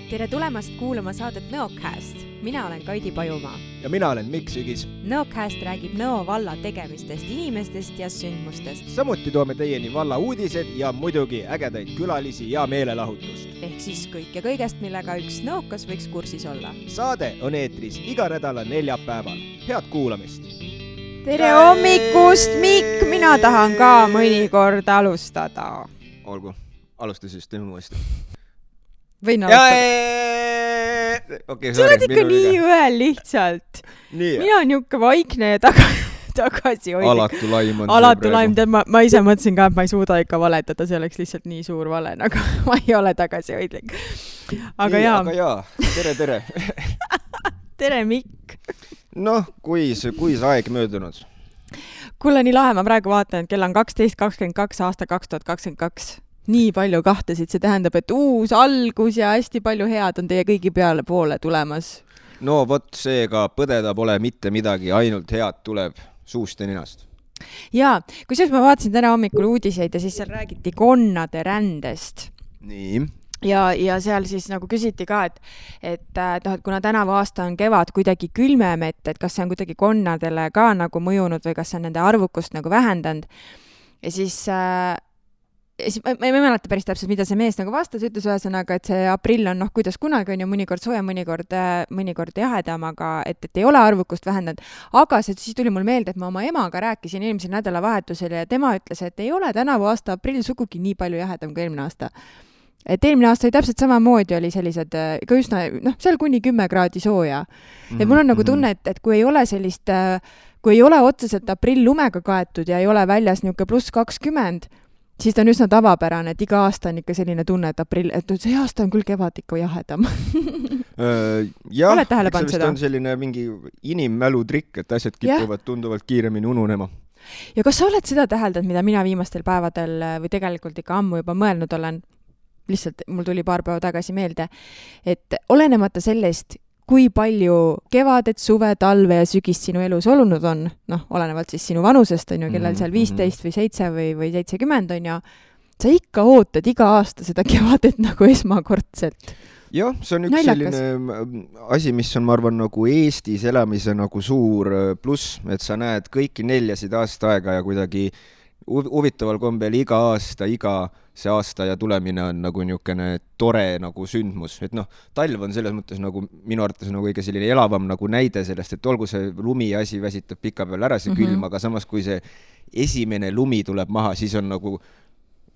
Tere tulemast kuulama saadet Nõocast. Mina olen Kaidi Pajumaa. Ja mina olen Mikk Sügis. Nõocast räägib Nõo valla tegemistest, inimestest ja sündmustest. Samuti toome teieni valla uudised ja muidugi ägedaid külalisi ja meelelahutust. Ehk siis kõik ja kõigest, millega üks nõokas võiks kursis olla. Saade on eetris iga nädala neljapäeval. Head kuulamist! Tere hommikust, Mikk! Mina tahan ka mõnikord alustada. Olgu, alusta siis teeme uuesti. Võin alustada. Okay, sa oled ikka nii ühel lihtsalt. Mina on niuke vaikne ja tagasi hoidlik. Alatu laim. Ma ise mõtlesin ka, et ma ei suuda ikka valetada, see oleks lihtsalt nii suur vale, aga ma ei ole tagasi hoidlik. Aga jaa. Tere. Tere, Mikk. Noh, kui see aeg möödunud? Kuule, nii lahe, ma praegu vaatan, et kell on 12.22 aasta 2022. Nii palju kahtesid, see tähendab, et uus algus ja hästi palju head on teie kõigi peale poole tulemas. No vot, seega põdeda pole mitte midagi, ainult head tuleb suust ja ninast. Jaa, kusjuures ma vaatasin täna hommikul uudiseid ja siis seal räägiti konnade rändest. Nii. Ja seal siis nagu küsiti ka, et kuna tänavu aasta on kevad kuidagi külmem, et kas see on kuidagi konnadele ka nagu mõjunud või kas see on nende arvukust nagu vähendanud. Ja siis ma ei mäleta päris täpselt, mida see mees nagu vastas, ütles ühesõnaga, et see aprill on kuidas kunagi on ju mõnikord sooja, mõnikord jahedam, aga et ei ole arvukust vähendanud. Aga siis tuli mul meelde, et ma oma emaga rääkisin eelmisel nädalavahetusel ja tema ütles, et ei ole tänavu aasta aprill sugugi nii palju jahedam kui eelmine aasta. Et eelmine aasta oli täpselt samamoodi, oli sellised ka üsna, seal kuni 10 kraadi sooja. Et mul on nagu tunne, et kui ei ole sellist, kui ei ole otseselt aprill lumega kaetud ja ei ole väljas niuke +20, siis ta on üsna tavapärane, et iga aasta on ikka selline tunne, et aprill, et see aasta on küll kevad ikka jahedam. Jah, eks see on selline mingi inimmälu trikk, et asjad kipuvad tunduvalt kiiremini ununema. Ja kas sa oled seda täheldanud, mida mina viimastel päevadel või tegelikult ikka ammu juba mõelnud olen, lihtsalt mul tuli paar päeva tagasi meelde, et olenemata sellest, kui palju kevadet, suve, talve ja sügist sinu elus olunud on, olenevalt siis sinu vanusest on ju, kellel seal 15 või 7 või 70 on ja sa ikka ootad iga aasta seda kevadet nagu esmakordselt. Jah, see on üks selline asi, mis on, ma arvan, nagu Eestis elamise nagu suur pluss, et sa näed kõiki neljasid aasta aega ja kuidagi huvitaval kombel iga see aasta ja tulemine on nagu niukene tore nagu sündmus. Et talv on selles mõttes nagu minu arvates nagu kõige selline elavam nagu näide sellest, et olgu see lumi asi väsitab pika peal ära see külm, aga samas kui see esimene lumi tuleb maha, siis on nagu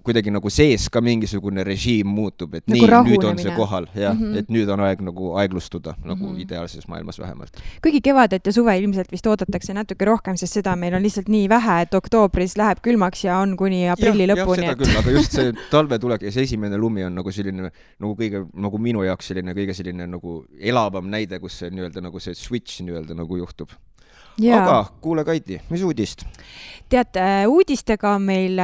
kuidagi nagu sees ka mingisugune režiim muutub, et nagu nüüd on see kohal, et nüüd on aeg nagu aeglustuda, nagu ideaalses maailmas vähemalt. Kuigi kevadet ja suve ilmselt vist oodatakse natuke rohkem, sest seda meil on lihtsalt nii vähe, et oktoobris läheb külmaks ja on kuni aprilli lõpuni. Jah, seda küll, aga just see talve tulek ja see esimene lumi on nagu selline, nagu kõige, nagu minu jaoks selline kõige selline nagu elavam näide, kus see nii-öelda nagu see switch nii-öelda nagu juhtub. Aga kuule Kaidi, mis uudist? Tead, uudistega on meil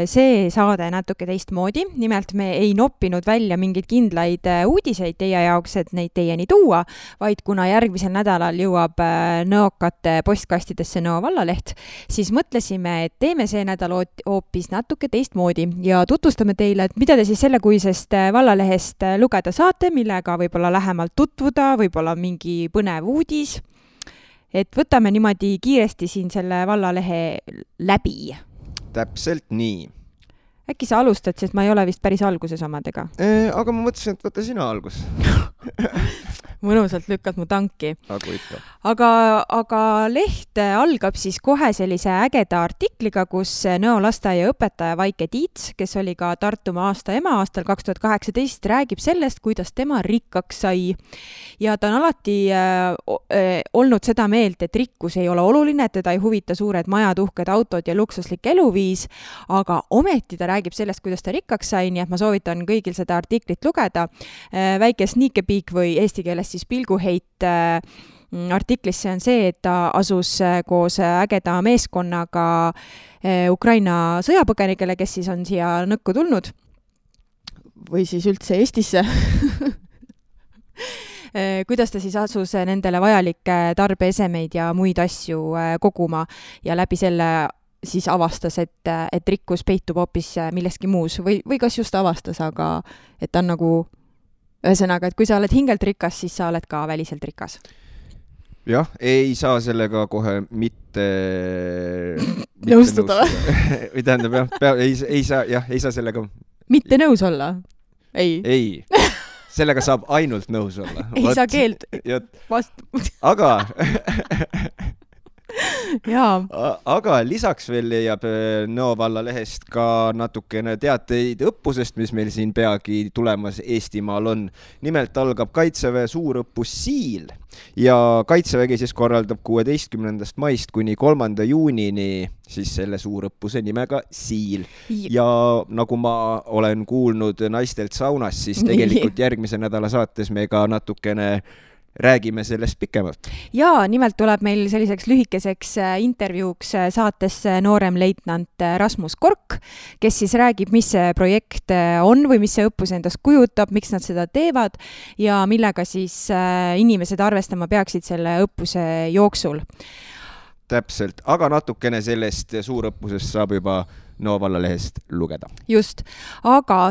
see saade natuke teistmoodi. Nimelt me ei noppinud välja mingeid kindlaid uudiseid teie jaoks, et neid teieni tuua, vaid kuna järgmisel nädalal jõuab nõokate postkastidesse Nõo vallaleht, siis mõtlesime, et teeme see nädal hoopis natuke teistmoodi ja tutvustame teile, et mida te siis sellekuisest vallalehest lugeda saate, millega võib-olla lähemalt tutvuda, võib-olla mingi põnev uudis. Et võtame niimoodi kiiresti siin selle vallalehe läbi. Täpselt nii. Äkki sa alustad, sest ma ei ole vist päris alguses omadega. Aga ma mõtlesin, et võta sina algus. Mõnusalt lükkad mu tanki. Aga leht algab siis kohe sellise ägeda artikliga, kus Nõo lasteaia õpetaja Vaike Tiits, kes oli ka Tartumaa aasta ema aastal 2018, räägib sellest, kuidas tema rikkaks sai. Ja ta on alati olnud seda meelt, et rikkus ei ole oluline, et teda ei huvita suured majad, uhked autod ja luksuslik eluviis, aga ometi ta räägib sellest, kuidas ta rikkaks sai, nii et ma soovitan kõigil seda artiklit lugeda. Väike sneakepeek või eesti keeles siis pilguheit artiklisse on see, et ta asus koos ägeda meeskonnaga Ukraina sõjapõgenikele, kes siis on siia nõkku tulnud või siis üldse Eestisse. Kuidas ta siis asus nendele vajalikke tarbeesemeid ja muid asju koguma ja läbi selle siis avastas, et rikkus peitub hoopis milleski muus või kas just avastas, aga et ta on nagu Ühesõnaga, et kui sa oled hingelt rikas, siis sa oled ka väliselt rikas. Jah, ei saa sellega kohe mitte nõustuda. Või tähendab, ei saa sellega... Mitte nõus olla? Ei. Sellega saab ainult nõus olla. Ei saa keeld vastu. Aga lisaks veel leiab Nõo valla lehest ka natukene teateid õppusest, mis meil siin peagi tulemas Eestimaal on. Nimelt algab Kaitseväe suurõppus Siil ja Kaitsevägi siis korraldab 16. maist kuni 3. juunini siis selle suurõppuse nimega Siil. Ja nagu ma olen kuulnud naistelt saunas, siis tegelikult järgmise nädala saates me ka natukene räägime sellest pikemalt. Ja nimelt tuleb meil selliseks lühikeseks intervjuuks saatesse noorem leitnant Rasmus Kork, kes siis räägib, mis see projekt on või mis see õppus endast kujutab, miks nad seda teevad ja millega siis inimesed arvestama peaksid selle õppuse jooksul. Täpselt, aga natukene sellest suurõppusest saab juba Nõo valla lehest lugeda. Just, aga...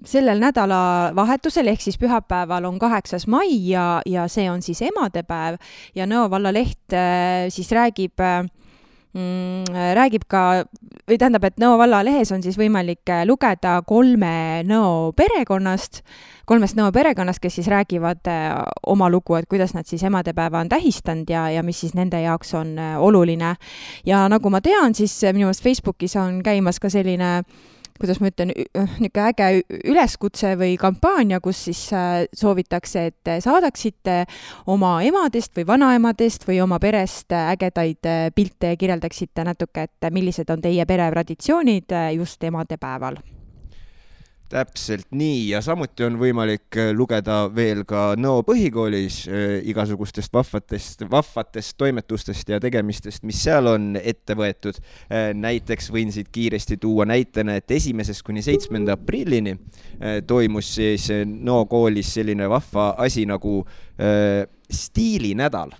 sellel nädala vahetusel ehk siis pühapäeval on 8. mai ja see on siis emadepäev ja Nõo valla leht siis räägib ka, või tähendab, et Nõo valla lehes on siis võimalik lugeda 3 Nõo perekonnast, kes siis räägivad oma lugu, et kuidas nad siis emadepäeva on tähistanud ja mis siis nende jaoks on oluline. Ja nagu ma tean, siis minu meelest Facebookis on käimas ka selline kuidas ma ütlen, niisugune äge üleskutse või kampaania, kus siis soovitakse, et saadaksite oma emadest või vanaemadest või oma perest ägedaid pilte ja kirjeldaksite natuke, et millised on teie pere traditsioonid just emadepäeval. Täpselt nii ja samuti on võimalik lugeda veel ka Nõo põhikoolis igasugustest vahvatest toimetustest ja tegemistest, mis seal on ette võetud. Näiteks võin siit kiiresti tuua näitena, et 1. kuni 7. aprillini toimus siis Nõo koolis selline vahva asi nagu stiilinädal.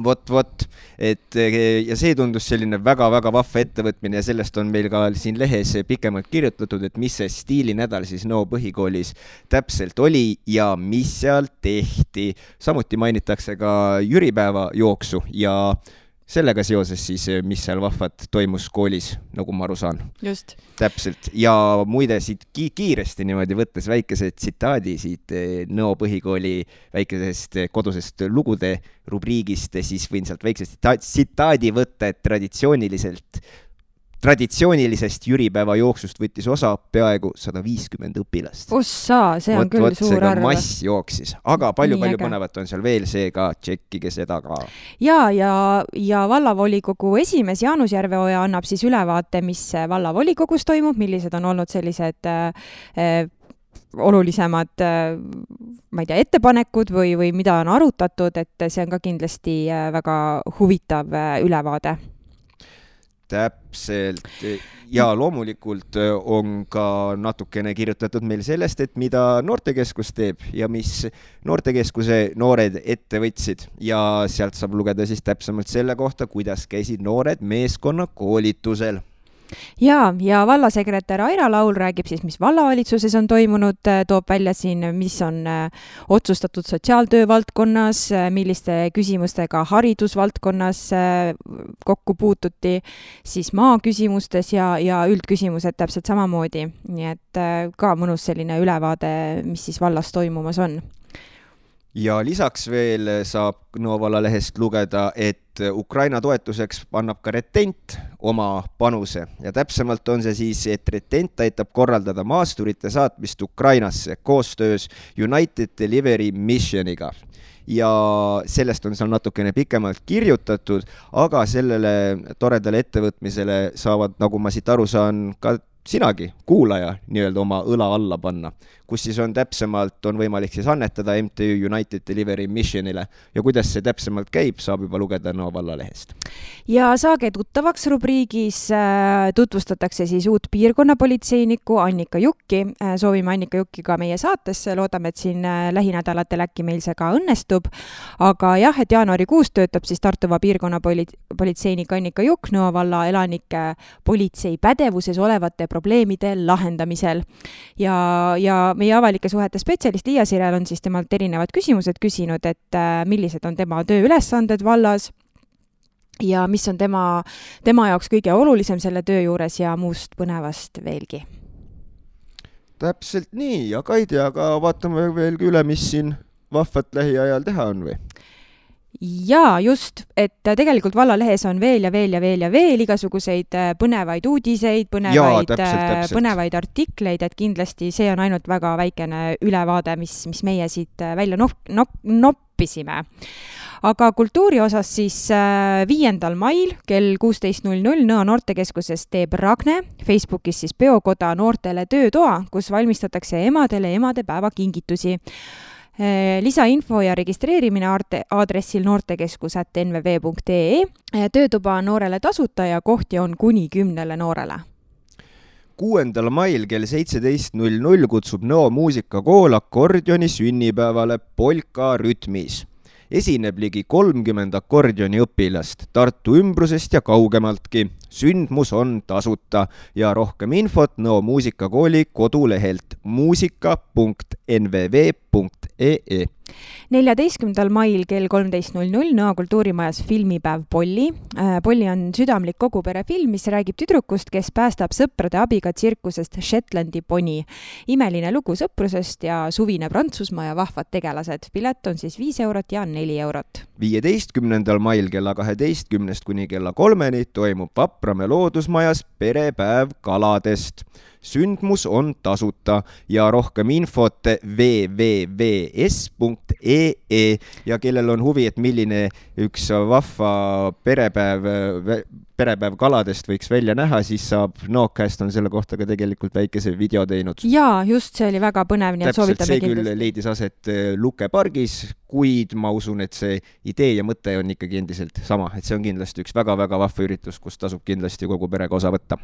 Vot, et ja see tundus selline väga-väga vahva ettevõtmine ja sellest on meil ka siin lehes pikemalt kirjutatud, et mis see stiilinädal siis Nõo põhikoolis täpselt oli ja mis seal tehti. Samuti mainitakse ka jüripäeva jooksu ja sellega seoses siis, mis seal vahvat toimus koolis, nagu ma aru saan. Just. Täpselt. Ja muide siit kiiresti niimoodi võttes väikese tsitaadi siit Nõo põhikooli väikesest kodusest lugude rubriigist, siis võin sealt väiksest tsitaadi võtta, et traditsioonilisest jüripäeva jooksust võttis osa peaaegu 150 õpilast. Ossa, see on küll suur arv. Mass jooksis, aga palju põnevat on seal veel, seega tšekkige seda ka. Ja vallavolikogu esimees Jaanus Järveoja annab siis ülevaate, mis vallavolikogus toimub, millised on olnud sellised olulisemad ma ei tea, ettepanekud või mida on arutatud, et see on ka kindlasti väga huvitav ülevaade. Täpselt. Ja loomulikult on ka natukene kirjutatud meil sellest, et mida Noortekeskus teeb ja mis Noortekeskuse noored ette võtsid. Ja sealt saab lugeda siis täpsemalt selle kohta, kuidas käisid noored meeskonna koolitusel. Ja vallasekretär Aira Laul räägib siis, mis vallavalitsuses on toimunud, toob välja siin, mis on otsustatud sotsiaaltöö valdkonnas, milliste küsimustega haridusvaldkonnas kokku puututi, siis maaküsimustes ja üldküsimused täpselt samamoodi. Nii et ka mõnus selline ülevaade, mis siis vallas toimumas on. Ja lisaks veel saab Nõo valla lehest lugeda, et Ukraina toetuseks annab ka Retent oma panuse ja täpsemalt on see siis, et Retent aitab korraldada maasturite saatmist Ukrainasse koostöös United Delivery Missioniga. Ja sellest on seal natukene pikemalt kirjutatud, aga sellele toredale ettevõtmisele saavad, nagu ma siit aru saan, ka sinagi, kuulaja, nii-öelda oma õla alla panna, kus siis on täpsemalt, on võimalik siis annetada MTÜ United Delivery Missionile ja kuidas see täpsemalt käib, saab juba lugeda Nõo valla lehest. Ja saage tuttavaks rubriigis tutvustatakse siis uut piirkonnapolitseinikku Annika Jukki. Soovime Annika Jukki ka meie saatesse, loodame, et siin lähinädalatel äkki meil see ka õnnestub. Aga jah, et jaanuarikuus töötab siis Tartuva piirkonnapolitseinik Annika Jukk Nõo valla elanike politsei pädevuses olevate probleemide lahendamisel. Ja meie avalike suhete spetsialist Liia Sirel on siis temalt erinevad küsimused küsinud, et millised on tema tööülesanded vallas ja mis on tema jaoks kõige olulisem selle töö juures ja muust põnevast veelgi. Täpselt nii, ja Kaidi, aga vaatame veelgi üle, mis siin vahvat lähiajal teha on või? Jaa, just, et tegelikult vallalehes on veel igasuguseid põnevaid uudiseid, põnevaid artikleid, et kindlasti see on ainult väga väikene ülevaade, mis meie siit välja noppisime. Aga kultuuri osas siis 5. mail kell 16.00 Nõo noortekeskuses teeb Ragne, Facebookis siis peokoda noortele töötoa, kus valmistatakse emadele emadepäeva kingitusi. Lisainfo ja registreerimine aadressil noortekeskus@nvv.ee. Töötuba on noorele tasuta ja kohti on kuni 10 noorele. 6. mail kell 17.00 kutsub Nõo muusikakool akordioni sünnipäevale Polka rütmis. Esineb ligi 30 akordioni õpilast Tartu ümbrusest ja kaugemaltki. Sündmus on tasuta ja rohkem infot Nõo muusikakooli kodulehelt muusika.nvv.ee. 14. mail kell 13.00 Nõo kultuurimajas filmipäev Polli. Polli on südamlik koguperefilm, mis räägib tüdrukust, kes päästab sõprade abiga tsirkusest Shetlandi poni. Imeline lugu sõprusest ja suvine Prantsusmaa ja vahvad tegelased. Pilet on siis 5 eurot ja 4 eurot. 15. mail kella 12 kuni kella 3 toimub Vapramäe loodusmajas perepäev kaladest. Sündmus on tasuta ja rohkem infot www.es.ee ja kellel on huvi, et milline üks vahva perepäev kaladest võiks välja näha, siis saab Nõokast on selle kohta ka tegelikult väikese video teinud. Jaa, just see oli väga põnev, nii et soovitame kindlasti. See küll leidis aset Luke pargis, kuid ma usun, et see idee ja mõte on ikkagi endiselt sama, et see on kindlasti üks väga-väga vahva üritus, kus tasub kindlasti kogu perega osa võtta.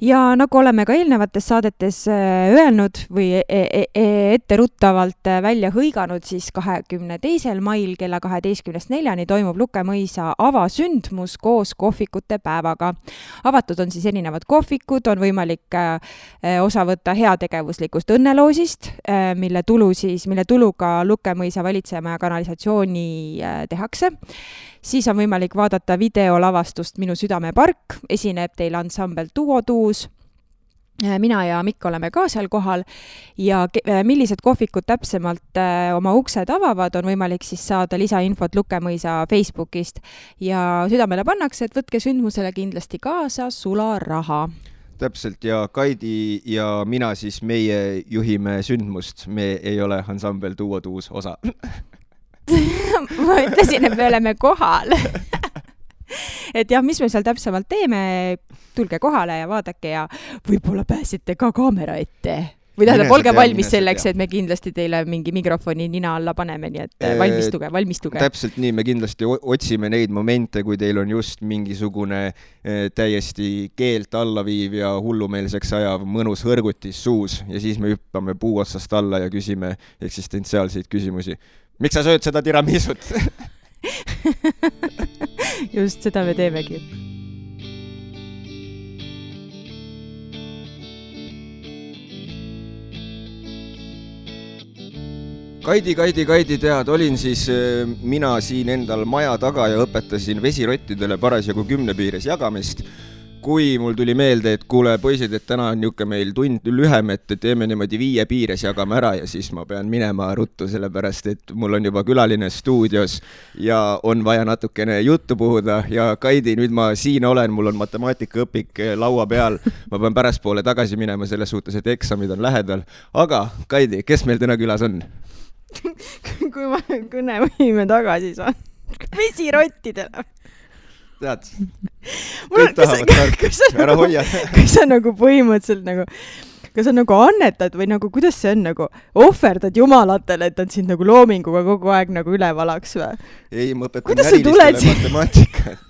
Ja nagu oleme ka eelnevates saadetes öelnud või etteruttavalt välja hõiganud, siis 22. mail kella 12.04 toimub Luke mõisa avasündmus koos kohvikute päevaga. Avatud on siis erinevad kohvikud, on võimalik osa võtta heategevuslikust õnneloosist, mille tuluga Luke mõisa valitsema ja kanalisatsiooni tehakse. Siis on võimalik vaadata videolavastust Minu südamepark, esineb teil ansambel Duo Tuus. Mina ja Mikk oleme ka seal kohal ja millised kohvikud täpsemalt oma uksed avavad, on võimalik siis saada lisainfot Luke mõisa Facebookist ja südamele pannakse, et võtke sündmusele kindlasti kaasa sularaha. Täpselt, ja Kaidi ja mina siis meie juhime sündmust, me ei ole ansambel Duo Tuus osa. Ma ütlesin, et me oleme kohal. Et jah, mis me seal täpsemalt teeme, tulge kohale ja vaadake ja võib-olla pääsete ka kaamera ette. Või tähendab, olge valmis selleks, et me kindlasti teile mingi mikrofoni nina alla paneme, nii et valmistuge. Täpselt nii, me kindlasti otsime neid momente, kui teil on just mingisugune täiesti keelt allaviiv ja hullumeelseks ajav mõnus hõrgutis suus ja siis me hüppame puu otsast alla ja küsime eksistentsiaalseid küsimusi. Miks sa sööd seda tiramisut? Just seda me teemegi. Kaidi, tead, olin siis mina siin endal maja taga ja õpetasin vesirottidele parasjagu 10 piires jagamist. Kui mul tuli meelde, et kuule poisid, et täna on niuke meil tund lühem, et teeme niimoodi 5 piires jagame ära ja siis ma pean minema ruttu, sellepärast et mul on juba külaline stuudios ja on vaja natukene juttu puhuda ja Kaidi, nüüd ma siin olen, mul on matemaatikaõpik laua peal, ma pean pärastpoole tagasi minema selles suhtes, et eksamid on lähedal, aga Kaidi, kes meil täna külas on? Kui ma kõnevõime tagasi saan vesirottidele. Tead, kõik tahavad tarku, ära hoia. Kas sa nagu põhimõtteliselt nagu, kas sa nagu annetad või nagu, kuidas see on nagu, ohverdad jumalatele, et nad sind nagu loominguga kogu aeg nagu ülevalaks või? Ei, ma õpetan närilistele matemaatikat.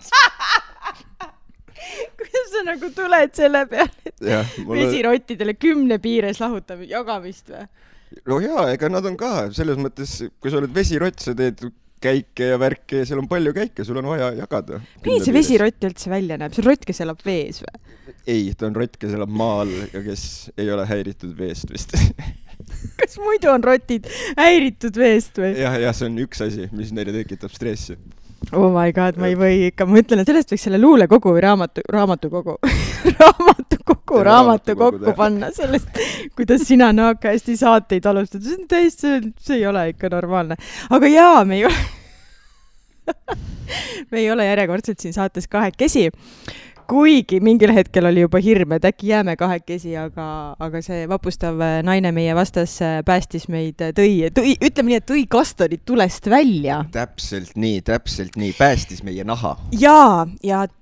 Kuidas sa nagu tuled selle peale, et vesirottidele 10 piires lahutab jagamist või? No jaa, ega nad on ka, selles mõttes, kui sa oled vesirott, sa teed käike ja värke ja seal on palju käike, sul on vaja jagada. Nii see vesirott üldse välja näeb? See on rott, kes elab vees või? Ei, ta on rott, kes elab maal ja kes ei ole häiritud veest vist. Kas muidu on rotid häiritud veest või? Ja, see on üks asi, mis neile tekitab stressi. Oh my god, ma ei või ikka, ma ütlen, et sellest võiks selle luulekogu või raamatukogu panna sellest, kuidas sina naakasti saateid alustad. See on täiesti, see ei ole ikka normaalne. Aga jaa, me ei ole järjekordselt siin saates kahekesi. Kuigi mingil hetkel oli juba hirm, et äkki jääme kahekesi, aga see vapustav naine meie vastas päästis meid, ütleme nii, et tõi kastanid tulest välja. Täpselt nii, päästis meie naha. Ja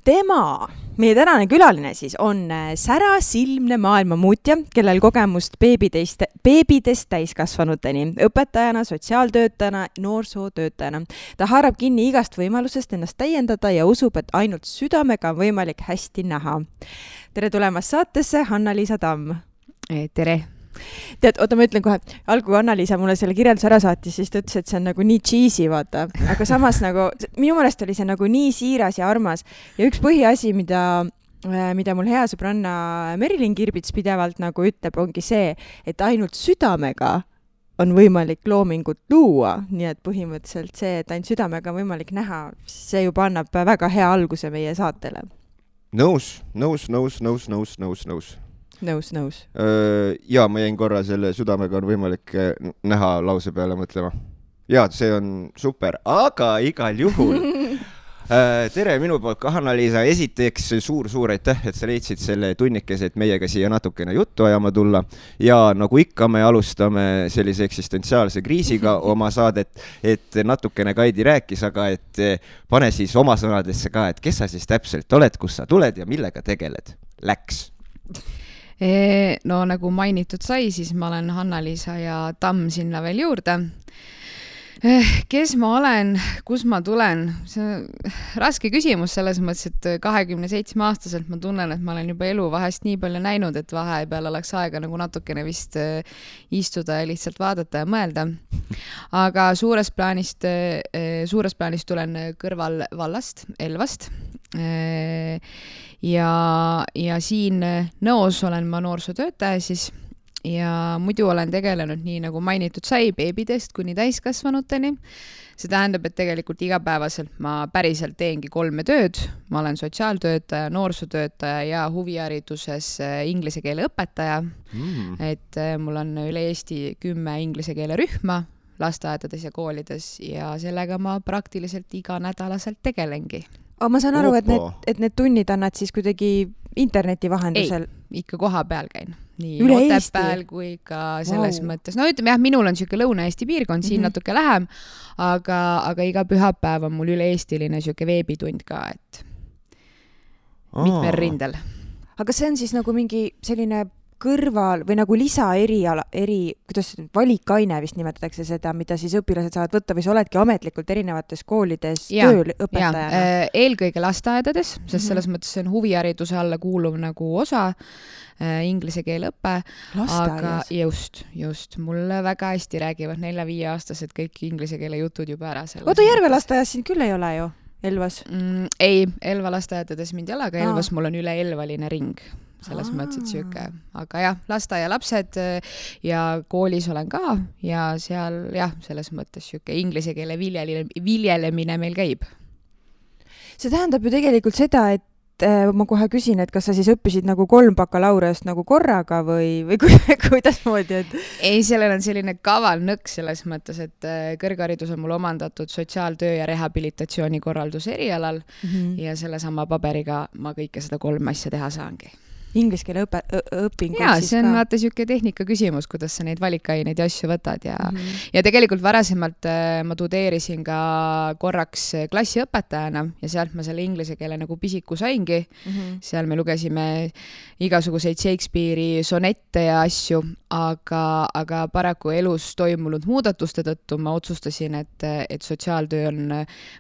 tema, meie tänane külaline siis on särasilmne maailmamuutja, kellel kogemust beebidest täiskasvanuteni, õpetajana, sotsiaaltöötajana, noorsootöötajana. Ta haarab kinni igast võimalusest ennast täiendada ja usub, et ainult südamega on võimalik hästi näha. Tere tulemast saatesse, Hanna-Liisa Tamm. Tere. Tead, oota, ma ütlen kohe, algul Hanna-Liisa mulle selle kirjelduse ära saatis, siis ta ütles, et see on nagu nii cheesy, vaata. Aga samas nagu, minu meelest oli see nagu nii siiras ja armas. Ja üks põhiasi, mida mul hea sõbranna Merilin Kirbits pidevalt nagu ütleb, ongi see, et ainult südamega on võimalik loomingut luua. Nii et põhimõtteliselt see, et ainult südamega on võimalik näha, see juba annab väga hea alguse meie saatele. Nõus. Ja ma jäin korra selle südamega on võimalik näha lause peale mõtlema. Ja, see on super, aga igal juhul. Tere minu poolt ka, Hanna-Liisa. Esiteks suur aitäh, et sa leidsid selle tunnikese, et meiega siia natukene juttu ajama tulla. Ja nagu ikka me alustame sellise eksistentsiaalse kriisiga oma saadet, et natukene Kaidi rääkis, aga et pane siis oma sõnadesse ka, et kes sa siis täpselt oled, kus sa tuled ja millega tegeled. Läks. No nagu mainitud sai, siis ma olen Hanna-Liisa ja Tamm sinna veel juurde. Kes ma olen, kus ma tulen? See on raske küsimus selles mõttes, et 27-aastaselt ma tunnen, et ma olen juba elu vahest nii palju näinud, et vahepeal oleks aega nagu natukene vist istuda ja lihtsalt vaadata ja mõelda. Aga suures plaanis tulen kõrval vallast, Elvast. Ja siin Nõos olen ma noorsootöötaja siis ja muidu olen tegelenud nii nagu mainitud sai beebidest kuni täiskasvanuteni. See tähendab, et tegelikult igapäevaselt ma päriselt teengi 3 tööd. Ma olen sotsiaaltöötaja, noorsootöötaja ja huvihariduses inglise keele õpetaja. Et mul on üle Eesti 10 inglise keele rühma lasteaedades ja koolides ja sellega ma praktiliselt iganädalaselt tegelengi. Aga ma saan aru, et need tunnid annad siis kuidagi interneti vahendusel? Ei, ikka koha peal käin. Nii Otepääl kui ka selles mõttes. No ütleme jah, minul on siuke Lõuna-Eesti piirkond, siin natuke lähem, aga iga pühapäev on mul üle-eestiline siuke veebitund ka, et mitmel rindel. Aga see on siis nagu mingi selline kõrval või nagu kuidas valikaine vist nimetatakse seda, mida siis õpilased saavad võtta või sa oledki ametlikult erinevates koolides tööl õpetajana? Eelkõige lasteaedades, sest selles mõttes see on huvihariduse alla kuuluv nagu osa, inglise keele õppe. Aga just. Mulle väga hästi räägivad 4-5-aastased kõik inglise keele jutud juba ära. Oota, Järve lasteaias siin küll ei ole ju? Elvas? Ei, Elva lasteaedades mind ei ole, aga Elvas mul on üle elvaline ring. Selles mõttes, et siuke. Aga jah, lasteaia lapsed ja koolis olen ka ja seal jah, selles mõttes siuke inglise keele viljelemine meil käib. See tähendab ju tegelikult seda, et ma kohe küsin, et kas sa siis õppisid nagu 3 bakalaureust nagu korraga või kuidas moodi? Ei, sellel on selline kaval nõks selles mõttes, et kõrgharidus on mul omandatud sotsiaaltöö ja rehabilitatsiooni korralduse erialal ja selle sama paberiga ma kõike seda 3 asja teha saangi. Inglise keele õpingud ja, siis ka? Ja, see on vaata siuke tehnika küsimus, kuidas sa neid valikaineid ja asju võtad ja tegelikult varasemalt ma tudeerisin ka korraks klassiõpetajana ja sealt ma selle inglise keele nagu pisiku saingi. Seal me lugesime igasuguseid Shakespeare'i sonette ja asju, aga paraku elus toimunud muudatuste tõttu ma otsustasin, et sotsiaaltöö on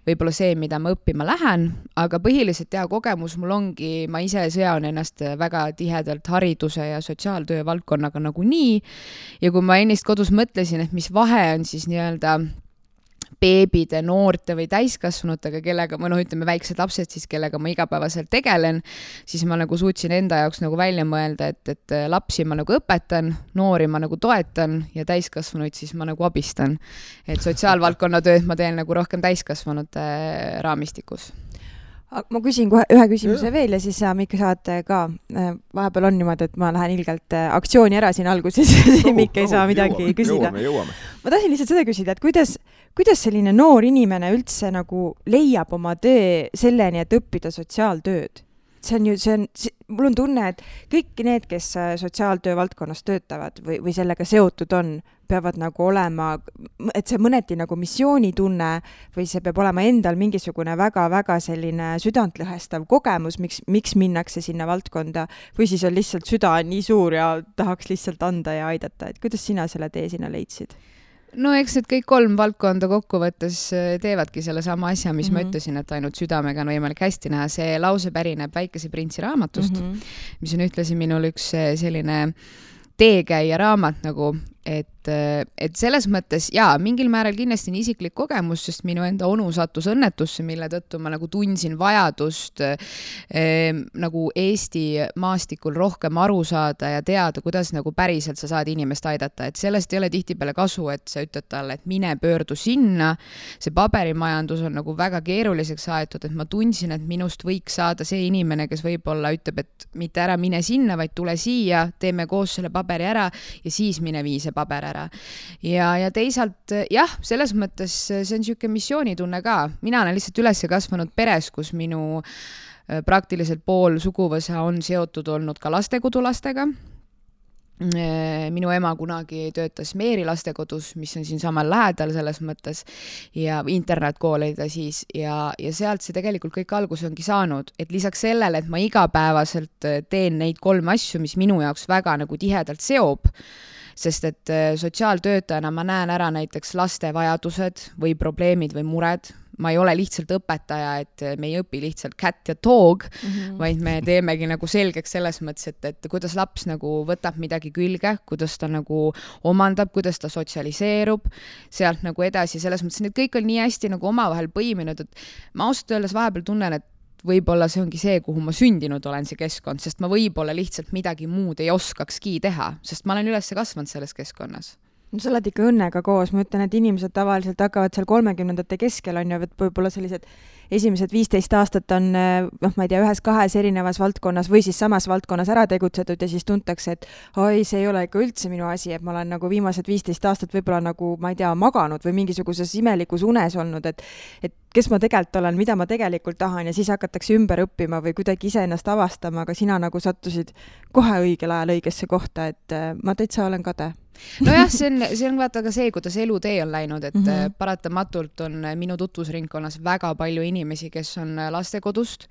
võib-olla see, mida ma õppima lähen, aga põhiliselt kogemus mul ongi, ma ise sean ennast väga tihedalt hariduse ja sotsiaaltöö valdkonnaga nagu nii. Ja kui ma ennist kodus mõtlesin, et mis vahe on siis nii-öelda beebide, noorte või täiskasvanutega, kellega ma ütleme väiksed lapsed siis, kellega ma igapäevaselt tegelen, siis ma nagu suutsin enda jaoks nagu välja mõelda, et lapsi ma nagu õpetan, noori ma nagu toetan ja täiskasvanuid siis ma nagu abistan. Et sotsiaalvaldkonna tööd ma teen nagu rohkem täiskasvanute raamistikus. Ma küsin kohe ühe küsimuse veel ja siis sa, Mikk, saad ka. Vahepeal on niimoodi, et ma lähen ilgelt aktsiooni ära siin alguses ja Mikk ei saa midagi küsida. Jõuame. Ma tahtsin lihtsalt seda küsida, et kuidas selline noor inimene üldse nagu leiab oma töö selleni, et õppida sotsiaaltööd? Mul on tunne, et kõik need, kes sotsiaaltöö valdkonnas töötavad või sellega seotud on, peavad nagu olema, et see mõneti nagu missioonitunne või see peab olema endal mingisugune väga-väga selline südantlõhestav kogemus, miks minnakse sinna valdkonda või siis on lihtsalt süda nii suur ja tahaks lihtsalt anda ja aidata. Et kuidas sina selle tee sinna leidsid? No eks need kõik 3 valdkonda kokkuvõttes teevadki selle sama asja, mis ma ütlesin, et ainult südamega on võimalik hästi näha. See lause pärineb Väikese printsi raamatust, mis on ühtlasi minul üks selline teekäija raamat nagu, et selles mõttes mingil määral kindlasti on isiklik kogemus, sest minu enda onu sattus õnnetusse, mille tõttu ma nagu tundsin vajadust nagu Eesti maastikul rohkem aru saada ja teada, kuidas nagu päriselt sa saad inimest aidata. Et sellest ei ole tihtipeale kasu, et sa ütled talle, et mine pöördu sinna. See paberimajandus on nagu väga keeruliseks aetud, et ma tundsin, et minust võiks saada see inimene, kes võib-olla ütleb, et mitte ära mine sinna, vaid tule siia, teeme koos selle paberi ära ja siis mine vii see paber ära. Ja teisalt, selles mõttes see on niisugune missioonitunne ka. Mina olen lihtsalt üles kasvanud peres, kus minu praktiliselt pool suguvõsa on seotud olnud ka lastekodulastega. Minu ema kunagi töötas Meeri lastekodus, mis on siin samal lähedal selles mõttes ja internetkoolida siis ja sealt see tegelikult kõik algus ongi saanud, et lisaks sellele, et ma igapäevaselt teen neid 3 asju, mis minu jaoks väga nagu tihedalt seob, sest et sotsiaaltöötajana ma näen ära näiteks laste vajadused või probleemid või mured. Ma ei ole lihtsalt õpetaja, et me ei õpi lihtsalt cat ja dog, vaid me teemegi nagu selgeks selles mõttes, et kuidas laps nagu võtab midagi külge, kuidas ta nagu omandab, kuidas ta sotsialiseerub, sealt nagu edasi. Selles mõttes, et kõik on nii hästi nagu omavahel põiminud, et ma ausalt öeldes vahepeal tunnen, et võib-olla see ongi see, kuhu ma sündinud olen, see keskkond, sest ma võib-olla lihtsalt midagi muud ei oskakski teha, sest ma olen üles kasvanud selles keskkonnas. No sa oled ikka õnnega koos, ma ütlen, et inimesed tavaliselt hakkavad seal 30ndate keskel on ju, võib-olla sellised esimesed 15 aastat on, ma ei tea, 1-2 erinevas valdkonnas või siis samas valdkonnas ära tegutsetud ja siis tuntakse, et oi, see ei ole ikka üldse minu asi, et ma olen nagu viimased 15 aastat võib-olla nagu, ma ei tea, maganud või mingisuguses imelikus unes olnud, et kes ma tegelikult olen, mida ma tegelikult tahan ja siis hakatakse ümber õppima või kuidagi ise ennast avastama, aga sina nagu sattusid kohe õigel ajal õigesse kohta, et ma täitsa olen kade. Nojah, see on vaata ka see, kuidas elutee on läinud, et paratamatult on minu tutvusringkonnas väga palju inimesi, kes on lastekodust.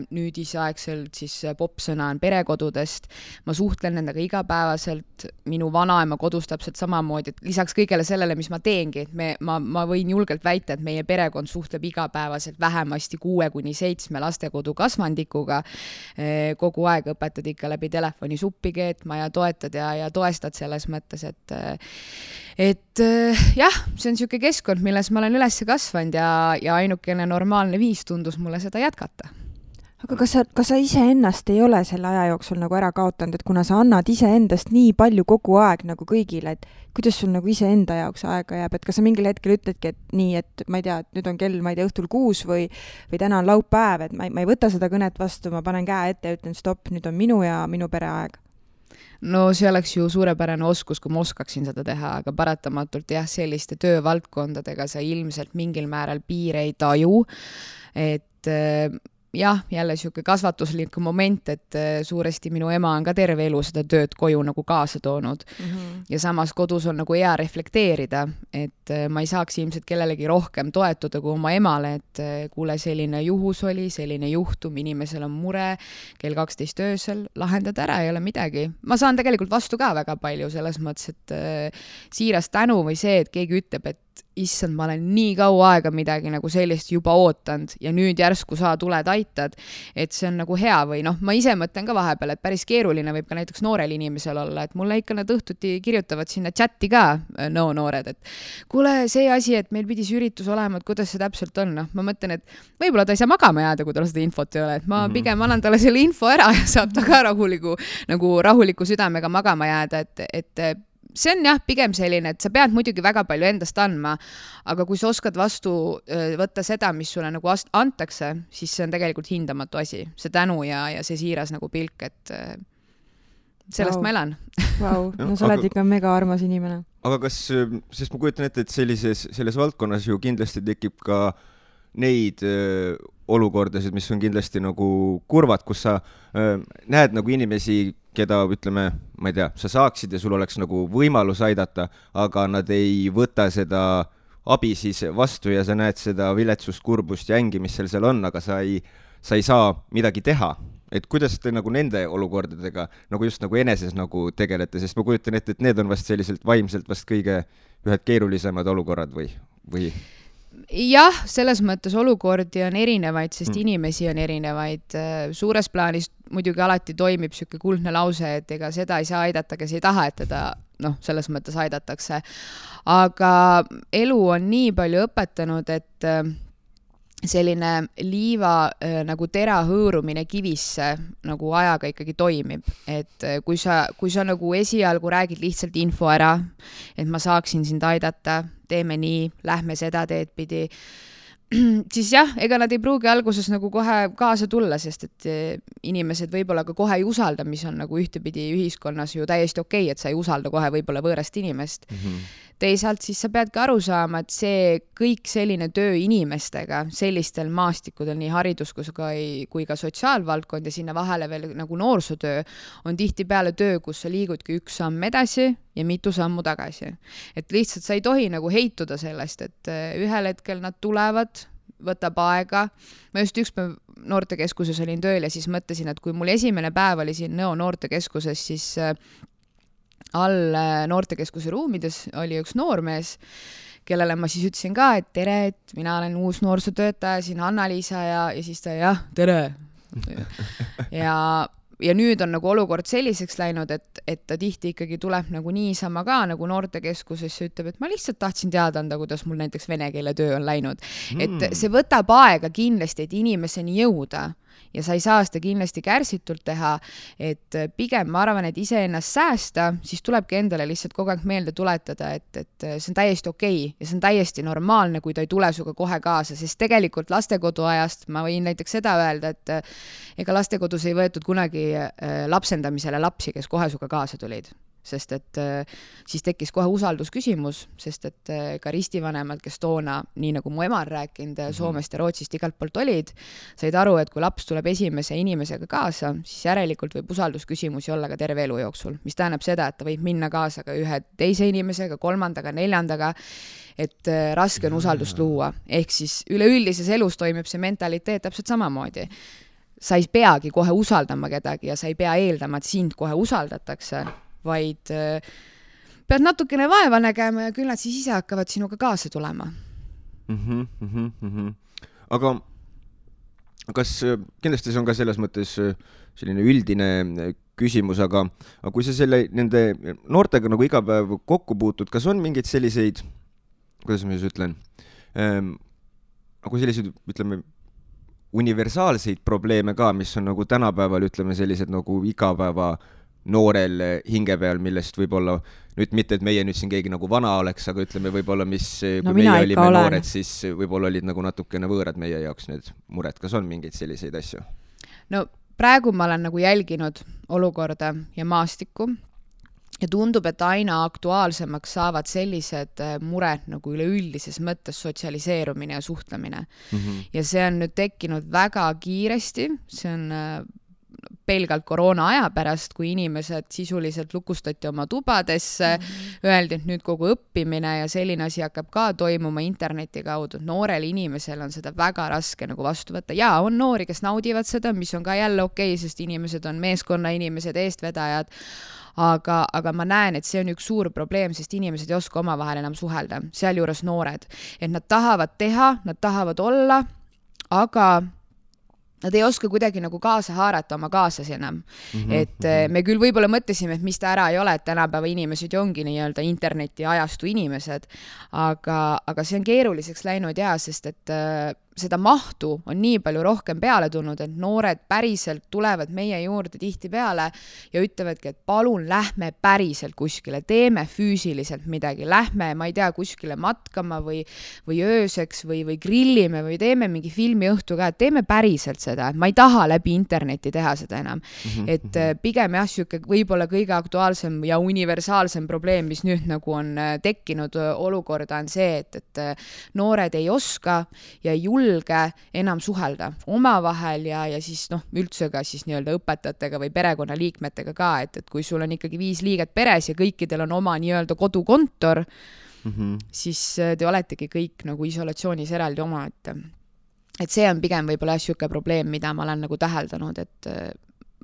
Nüüdisaegselt siis popsõna on perekodudest. Ma suhtlen nendega igapäevaselt, minu vanaema kodus täpselt samamoodi, et lisaks kõigele sellele, mis ma teengi, et ma võin julgelt väita, et meie perekond suhtleb igapäevaselt vähemasti 6-7 lastekodu kasvandikuga. Kogu aeg õpetad ikka läbi telefoni suppi keetma ja toetad ja toestad selles mõttes, et jah, see on niisugune keskkond, milles ma olen üles kasvanud ja ainukene normaalne viis tundus mulle seda jätkata. Aga kas sa iseennast ei ole selle aja jooksul nagu ära kaotanud, et kuna sa annad iseendast nii palju kogu aeg nagu kõigile, et kuidas sul nagu iseenda jaoks aega jääb, et kas sa mingil hetkel ütledki, et nii, et ma ei tea, et nüüd on kell, ma ei tea, õhtul 6 või täna on laupäev, et ma ei võta seda kõnet vastu, ma panen käe ette ja ütlen stopp, nüüd on minu ja minu pere aeg. No see oleks ju suurepärane oskus, kui ma oskaksin seda teha, aga paratamatult jah, selliste töövaldkondadega sa ilmselt mingil määral piire ei taju, et jah, jälle niisugune kasvatuslik moment, et suuresti minu ema on ka terve elu seda tööd koju nagu kaasa toonud. Ja samas kodus on nagu hea reflekteerida, et ma ei saaks ilmselt kellelegi rohkem toetuda kui oma emale, et kuule, selline juhus oli, selline juhtum, inimesel on mure, kell 12 öösel, lahendad ära, ei ole midagi. Ma saan tegelikult vastu ka väga palju selles mõttes, et siiras tänu või see, et keegi ütleb, et issand, ma olen nii kaua aega midagi nagu sellist juba ootanud ja nüüd järsku sa tuled aitad, et see on nagu hea või noh, ma ise mõtlen ka vahepeal, et päris keeruline võib ka näiteks noorel inimesel olla, et mulle ikka nad õhtuti kirjutavad sinna chati ka noored, et kuule, see asi, et meil pidi see üritus olema, et kuidas see täpselt on, noh, ma mõtlen, et võib-olla ta ei saa magama jääda, kui tal seda infot ei ole, et ma pigem annan talle selle info ära ja saab ta ka rahuliku südamega magama jääda, et see on jah, pigem selline, et sa pead muidugi väga palju endast andma, aga kui sa oskad vastu võtta seda, mis sulle nagu antakse, siis see on tegelikult hindamatu asi, see tänu ja see siiras nagu pilk, et sellest ma elan. No sa oled ikka mega armas inimene. Aga kas, sest ma kujutan ette, et selles valdkonnas ju kindlasti tekib ka neid olukordasid, mis on kindlasti nagu kurvad, kus sa näed nagu inimesi, keda, ütleme, ma ei tea, sa saaksid ja sul oleks nagu võimalus aidata, aga nad ei võta seda abi siis vastu ja sa näed seda viletsust, kurbust ja ängi, mis seal on, aga sa ei saa midagi teha. Et kuidas te nagu nende olukordadega nagu just nagu eneses nagu tegelete, sest ma kujutan ette, et need on vast selliselt vaimselt vast kõige ühed keerulisemad olukorrad või? Jah, selles mõttes olukordi on erinevaid, sest inimesi on erinevaid. Suures plaanis muidugi alati toimib siuke kuldne lause, et ega seda ei saa aidata, kes ei taha, et teda selles mõttes aidatakse. Aga elu on nii palju õpetanud, et selline liiva nagu tera hõõrumine kivisse nagu ajaga ikkagi toimib. Et kui sa nagu esialgu räägid lihtsalt info ära, et ma saaksin sind aidata, teeme nii, lähme seda teed pidi, siis jah, ega nad ei pruugi alguses nagu kohe kaasa tulla, sest et inimesed võib-olla ka kohe ei usalda, mis on nagu ühtepidi ühiskonnas ju täiesti okei, et sa ei usalda kohe võib-olla võõrast inimest. Teisalt siis sa pead ka aru saama, et see kõik selline töö inimestega sellistel maastikudel, nii haridus kui ka sotsiaalvaldkond ja sinna vahele veel nagu noorsootöö on tihti peale töö, kus sa liigudki üks samm edasi ja mitu sammu tagasi. Et lihtsalt sa ei tohi nagu heituda sellest, et ühel hetkel nad tulevad, võtab aega. Ma just üks päev noortekeskuses olin tööl ja siis mõtlesin, et kui mul esimene päev oli siin Nõo noortekeskuses, siis all noortekeskuse ruumides oli üks noormees, kellele ma siis ütlesin ka, et tere, et mina olen uus noorsootöötaja, siin Anna-Liisa ja siis ta jah, tere. Ja nüüd on nagu olukord selliseks läinud, et ta tihti ikkagi tuleb nagu niisama ka nagu noortekeskusesse ütleb, et ma lihtsalt tahtsin teada anda, kuidas mul näiteks vene keele töö on läinud. Et see võtab aega kindlasti, et inimeseni jõuda ja sa ei saa seda kindlasti kärsitult teha, et pigem ma arvan, et ise ennast säästa, siis tulebki endale lihtsalt kogu aeg meelde tuletada, et see on täiesti okei ja see on täiesti normaalne, kui ta ei tule suga kohe kaasa, sest tegelikult lastekodu ajast ma võin näiteks seda öelda, et ega lastekodus ei võetud kunagi lapsendamisele lapsi, kes kohe suga kaasa tulid. Sest et siis tekkis kohe usaldusküsimus, sest et ka ristivanemad, kes toona, nii nagu mu ema on rääkinud, Soomest ja Rootsist igalt poolt olid, said aru, et kui laps tuleb esimese inimesega kaasa, siis järelikult võib usaldusküsimusi olla ka terve elu jooksul, mis tähendab seda, et ta võib minna kaasa ka ühe teise inimesega, kolmandaga, neljandaga, et raske on usaldust luua. Ehk siis üleüldises elus toimib see mentaliteet täpselt samamoodi. Sa ei peagi kohe usaldama kedagi ja sa ei pea eeldama, et sind kohe usaldatakse, vaid pead natukene vaeva nägema ja küll nad siis ise hakkavad sinuga kaasa tulema. Aga kas kindlasti see on ka selles mõttes selline üldine küsimus, aga kui sa nende noortega nagu iga päev kokku puutud, kas on mingeid selliseid, kuidas ma siis ütlen, nagu selliseid, ütleme, universaalseid probleeme ka, mis on nagu tänapäeval, ütleme, sellised nagu igapäeva noorel hinge peal, millest võib-olla nüüd mitte, et meie nüüd siin keegi nagu vana oleks, aga ütleme võib-olla, mis kui meie olime noored, siis võib-olla olid nagu natukene võõrad meie jaoks need mured. Kas on mingeid selliseid asju? No praegu ma olen nagu jälginud olukorda ja maastikku ja tundub, et aina aktuaalsemaks saavad sellised mured nagu üleüldises mõttes sotsialiseerumine ja suhtlemine. Ja see on nüüd tekkinud väga kiiresti, see on pelgalt koroona aja pärast, kui inimesed sisuliselt lukustati oma tubadesse, öeldi, et nüüd kogu õppimine ja selline asi hakkab ka toimuma interneti kaudu. Noorel inimesel on seda väga raske nagu vastu võtta. Ja on noori, kes naudivad seda, mis on ka jälle okei, sest inimesed on meeskonna inimesed, eestvedajad. Aga ma näen, et see on üks suur probleem, sest inimesed ei oska omavahel enam suhelda, sealjuures noored. Et nad tahavad teha, nad tahavad olla, aga nad ei oska kuidagi nagu kaasa haarata oma kaaslasi enam. Et me küll võib-olla mõtlesime, et mis ta ära ei ole, et tänapäeva inimesed ongi nii-öelda interneti ajastu inimesed, aga see on keeruliseks läinud ja, sest et seda mahtu on nii palju rohkem peale tulnud, et noored päriselt tulevad meie juurde tihti peale ja ütlevadki, et palun lähme päriselt kuskile, teeme füüsiliselt midagi, lähme, ma ei tea, kuskile matkama või ööseks või grillime või teeme mingi filmiõhtu ka, et teeme päriselt seda, et ma ei taha läbi interneti teha seda enam. Et pigem jah, siuke võib-olla kõige aktuaalsem ja universaalsem probleem, mis nüüd nagu on tekkinud olukorda on see, et noored ei oska ja ei julge enam suhelda omavahel ja siis üldse ka siis nii-öelda õpetajatega või perekonnaliikmetega ka, et kui sul on ikkagi 5 liiget peres ja kõikidel on oma nii-öelda kodukontor, siis te oletegi kõik nagu isolatsioonis eraldi oma, et see on pigem võib-olla siuke probleem, mida ma olen nagu täheldanud, et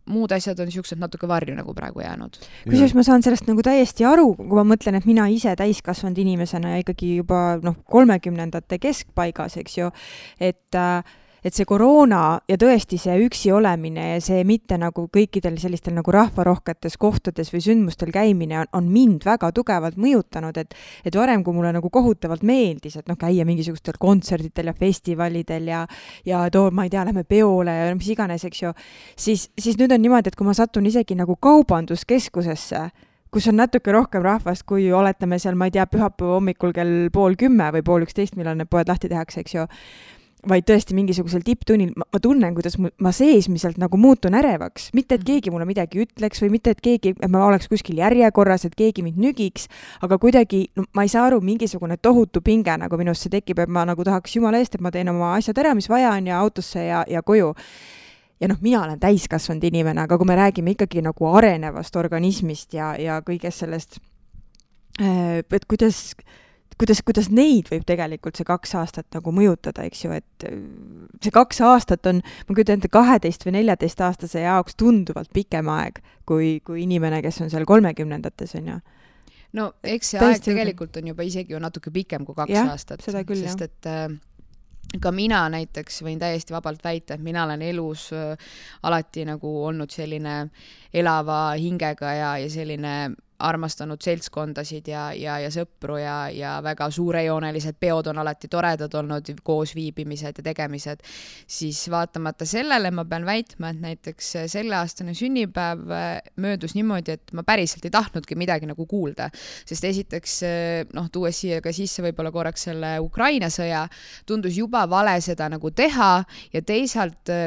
muud asjad on siuksed natuke varju nagu praegu jäänud. Kusjuures ma saan sellest nagu täiesti aru, kui ma mõtlen, et mina ise täiskasvanud inimesena ja ikkagi juba 30ndate keskpaigas, eks ju, et see koroona ja tõesti see üksi olemine ja see mitte nagu kõikidel sellistel nagu rahvarohketes kohtades või sündmustel käimine on mind väga tugevalt mõjutanud, et varem, kui mulle nagu kohutavalt meeldis, et käia mingisugustel kontserditel ja festivalidel ja ma ei tea, lähme peole ja mis iganes, eks ju, siis nüüd on niimoodi, et kui ma satun isegi nagu kaubanduskeskusesse, kus on natuke rohkem rahvast, kui oletame seal, ma ei tea, pühapäeva hommikul kell 10:30 või 10:30, millal need poed lahti tehakse, eks ju, vaid tõesti mingisugusel tipptunnil, ma tunnen, kuidas ma seesmiselt nagu muutun ärevaks. Mitte, et keegi mulle midagi ütleks või mitte, et ma oleks kuskil järjekorras, et keegi mind nügiks, aga kuidagi, ma ei saa aru, mingisugune tohutu pinge nagu minusse tekib, et ma nagu tahaks jumala eest, et ma teen oma asjad ära, mis vaja on ja autosse ja koju. Ja mina olen täiskasvanud inimene, aga kui me räägime ikkagi nagu arenevast organismist ja kõigest sellest, et kuidas neid võib tegelikult see 2 aastat nagu mõjutada, eks ju, et see 2 aastat on, ma kujutan ette 12 või 14 aastase jaoks tunduvalt pikem aeg kui inimene, kes on seal 30ndates, on ju. No eks see aeg tegelikult on juba isegi ju natuke pikem kui 2 aastat, seda küll, sest et ka mina näiteks võin täiesti vabalt väita, et mina olen elus alati nagu olnud selline elava hingega ja selline armastanud seltskondasid ja sõpru ja väga suurejoonelised peod on alati toredad olnud, koos viibimised ja tegemised, siis vaatamata sellele ma pean väitma, et näiteks selleaastane sünnipäev möödus niimoodi, et ma päriselt ei tahtnudki midagi nagu kuulda, sest esiteks tuues siia ka sisse võib-olla korraks selle Ukraina sõja, tundus juba vale seda nagu teha ja teisalt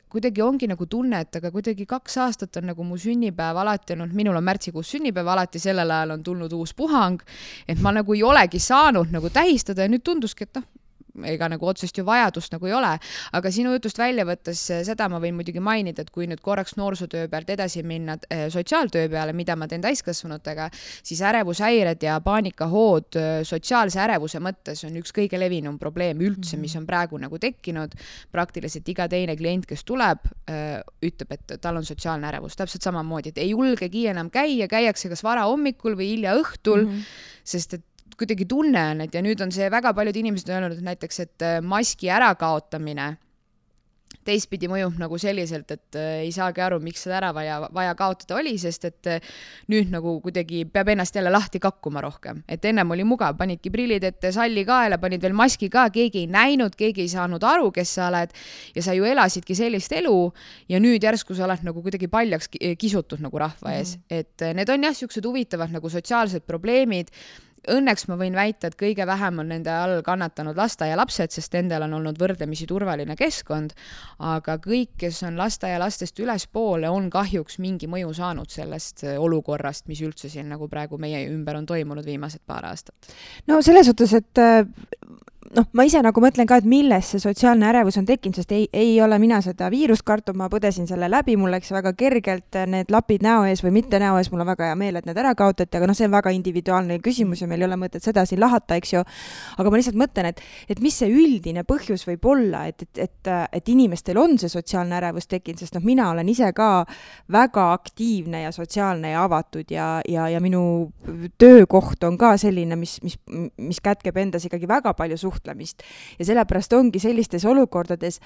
kuidagi ongi nagu tunne, et aga kuidagi 2 aastat on nagu mu sünnipäev alati olnud, minul on märtsikuus sünnipäev, alati sellel ajal on tulnud uus puhang, et ma nagu ei olegi saanud nagu tähistada ja nüüd tunduski, et ega nagu otsest ju vajadust nagu ei ole, aga sinu jutust välja võttes seda ma võin muidugi mainida, et kui nüüd korraks noorsootöö pealt edasi minna sotsiaaltöö peale, mida ma teen täiskasvanutega, siis ärevushäired ja paanikahood sotsiaalse ärevuse mõttes on üks kõige levinum probleem üldse, mis on praegu nagu tekkinud. Praktiliselt iga teine klient, kes tuleb, ütleb, et tal on sotsiaalne ärevus, täpselt samamoodi, et ei julgegi enam käiakse kas vara hommikul või hilja õhtul, sest et kuidagi tunne on, et ja nüüd on see väga paljud inimesed öelnud, et näiteks, et maski ärakaotamine teistpidi mõjub nagu selliselt, et ei saagi aru, miks seda ära vaja kaotada oli, sest et nüüd nagu kuidagi peab ennast jälle lahti kakkuma rohkem. Et ennem oli mugav, panidki prillid ette, salli kaela, panid veel maski ka, keegi ei näinud, keegi ei saanud aru, kes sa oled ja sa ju elasidki sellist elu ja nüüd järsku sa oled nagu kuidagi paljaks kisutud nagu rahva ees. Et need on jah, siuksed huvitavad nagu sotsiaalsed probleemid. Õnneks ma võin väita, et kõige vähem on nende all kannatanud lasteaialapsed, sest nendel on olnud võrdlemisi turvaline keskkond, aga kõik, kes on lasteaialastest ülespoole, on kahjuks mingi mõju saanud sellest olukorrast, mis üldse siin nagu praegu meie ümber on toimunud viimased paar aastat. No selles suhtes, et ma ise nagu mõtlen ka, et milles see sotsiaalne ärevus on tekkinud, sest ei ole mina seda viirust kartub, ma põdesin selle läbi, mul läks väga kergelt need lapid näo ees või mitte näo ees, mul on väga hea meel, et need ära kaotati, aga see on väga individuaalne küsimus ja meil ei ole mõtet seda siin lahata, eks ju. Aga ma lihtsalt mõtlen, et mis see üldine põhjus võib olla, et inimestel on see sotsiaalne ärevus tekkinud, sest mina olen ise ka väga aktiivne ja sotsiaalne ja avatud ja minu töökoht on ka selline, mis kätkeb endas ikkagi väga palju suhtlemist. Ja sellepärast ongi sellistes olukordades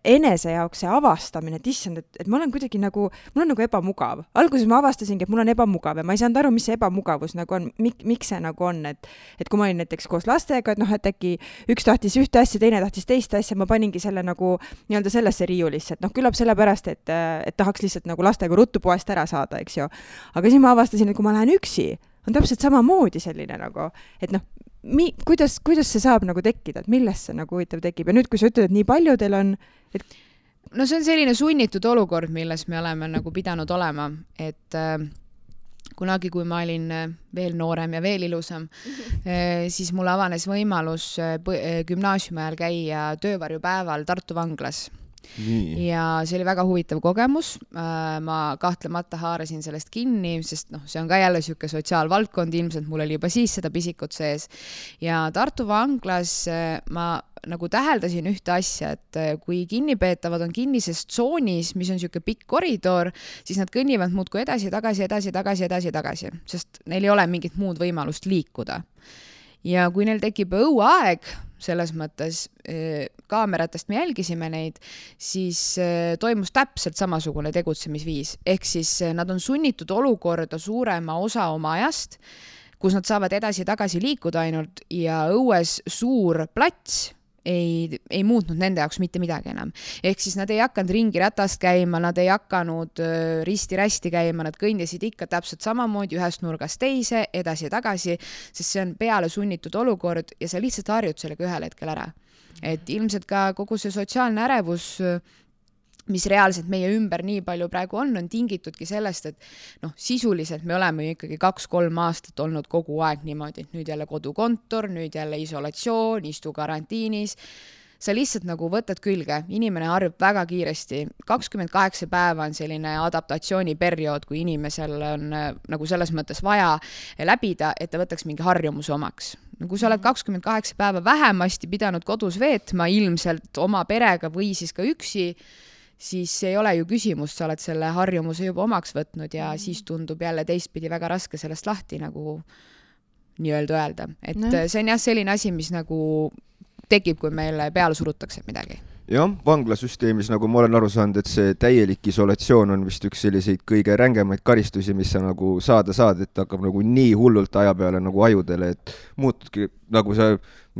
enese jaoks see avastamine, et issand, et ma olen kuidagi nagu, mul on nagu ebamugav. Alguses ma avastasingi, et mul on ebamugav ja ma ei saanud aru, mis see ebamugavus nagu on, miks see nagu on, et kui ma olin näiteks koos lastega, et äkki üks tahtis ühte asja, teine tahtis teist asja, ma paningi selle nagu nii-öelda sellesse riiulisse, et küllap sellepärast, et tahaks lihtsalt nagu lastega ruttu poest ära saada, eks ju. Aga siis ma avastasin, et kui ma lähen üksi, on täpselt samamoodi selline nagu, et kuidas see saab nagu tekkida, et millest see nagu huvitav tekib ja nüüd, kui sa ütled, et nii paljudel on, et no see on selline sunnitud olukord, milles me oleme nagu pidanud olema, et kunagi, kui ma olin veel noorem ja veel ilusam, siis mul avanes võimalus gümnaasiumi ajal käia töövarjupäeval Tartu vanglas. Ja see oli väga huvitav kogemus, ma kahtlemata haarasin sellest kinni, sest see on ka jälle siuke sotsiaalvaldkond, ilmselt mul oli juba siis seda pisikut sees ja Tartu vanglas ma nagu täheldasin ühte asja, et kui kinnipeetavad on kinnises tsoonis, mis on siuke pikk koridor, siis nad kõnnivad muudkui edasi, tagasi, sest neil ei ole mingit muud võimalust liikuda. Ja kui neil tekib õuaeg, selles mõttes kaameratest me jälgisime neid, siis toimus täpselt samasugune tegutsemisviis. Ehk siis nad on sunnitud olukorda suurema osa oma ajast, kus nad saavad edasi-tagasi liikuda ainult ja õues suur plats ei muutnud nende jaoks mitte midagi enam. Ehk siis nad ei hakanud ringi ratast käima, nad ei hakanud risti-rästi käima, nad kõndisid ikka täpselt samamoodi ühest nurgast teise, edasi-tagasi, sest see on peale sunnitud olukord ja sa lihtsalt harjud sellega ühel hetkel ära. Et ilmselt ka kogu see sotsiaalne ärevus, mis reaalselt meie ümber nii palju praegu on tingitudki sellest, et sisuliselt me oleme ju ikkagi 2-3 aastat olnud kogu aeg niimoodi, et nüüd jälle kodukontor, nüüd jälle isolatsioon, istu karantiinis. Sa lihtsalt nagu võtad külge, inimene harjub väga kiiresti. 28 päeva on selline adaptatsiooniperiood, kui inimesel on nagu selles mõttes vaja läbida, et ta võtaks mingi harjumuse omaks. Kui sa oled 28 päeva vähemasti pidanud kodus veetma ilmselt oma perega või siis ka üksi, siis ei ole ju küsimus, sa oled selle harjumuse juba omaks võtnud ja siis tundub jälle teistpidi väga raske sellest lahti nagu nii-öelda öelda. Et see on jah selline asi, mis nagu tekib, kui meile peale surutakse midagi. Jah, vanglasüsteemis, nagu ma olen aru saanud, et see täielik isolatsioon on vist üks selliseid kõige rängemaid karistusi, mis sa nagu saad, et hakkab nagu nii hullult aja peale nagu ajudele, et muutudki nagu sa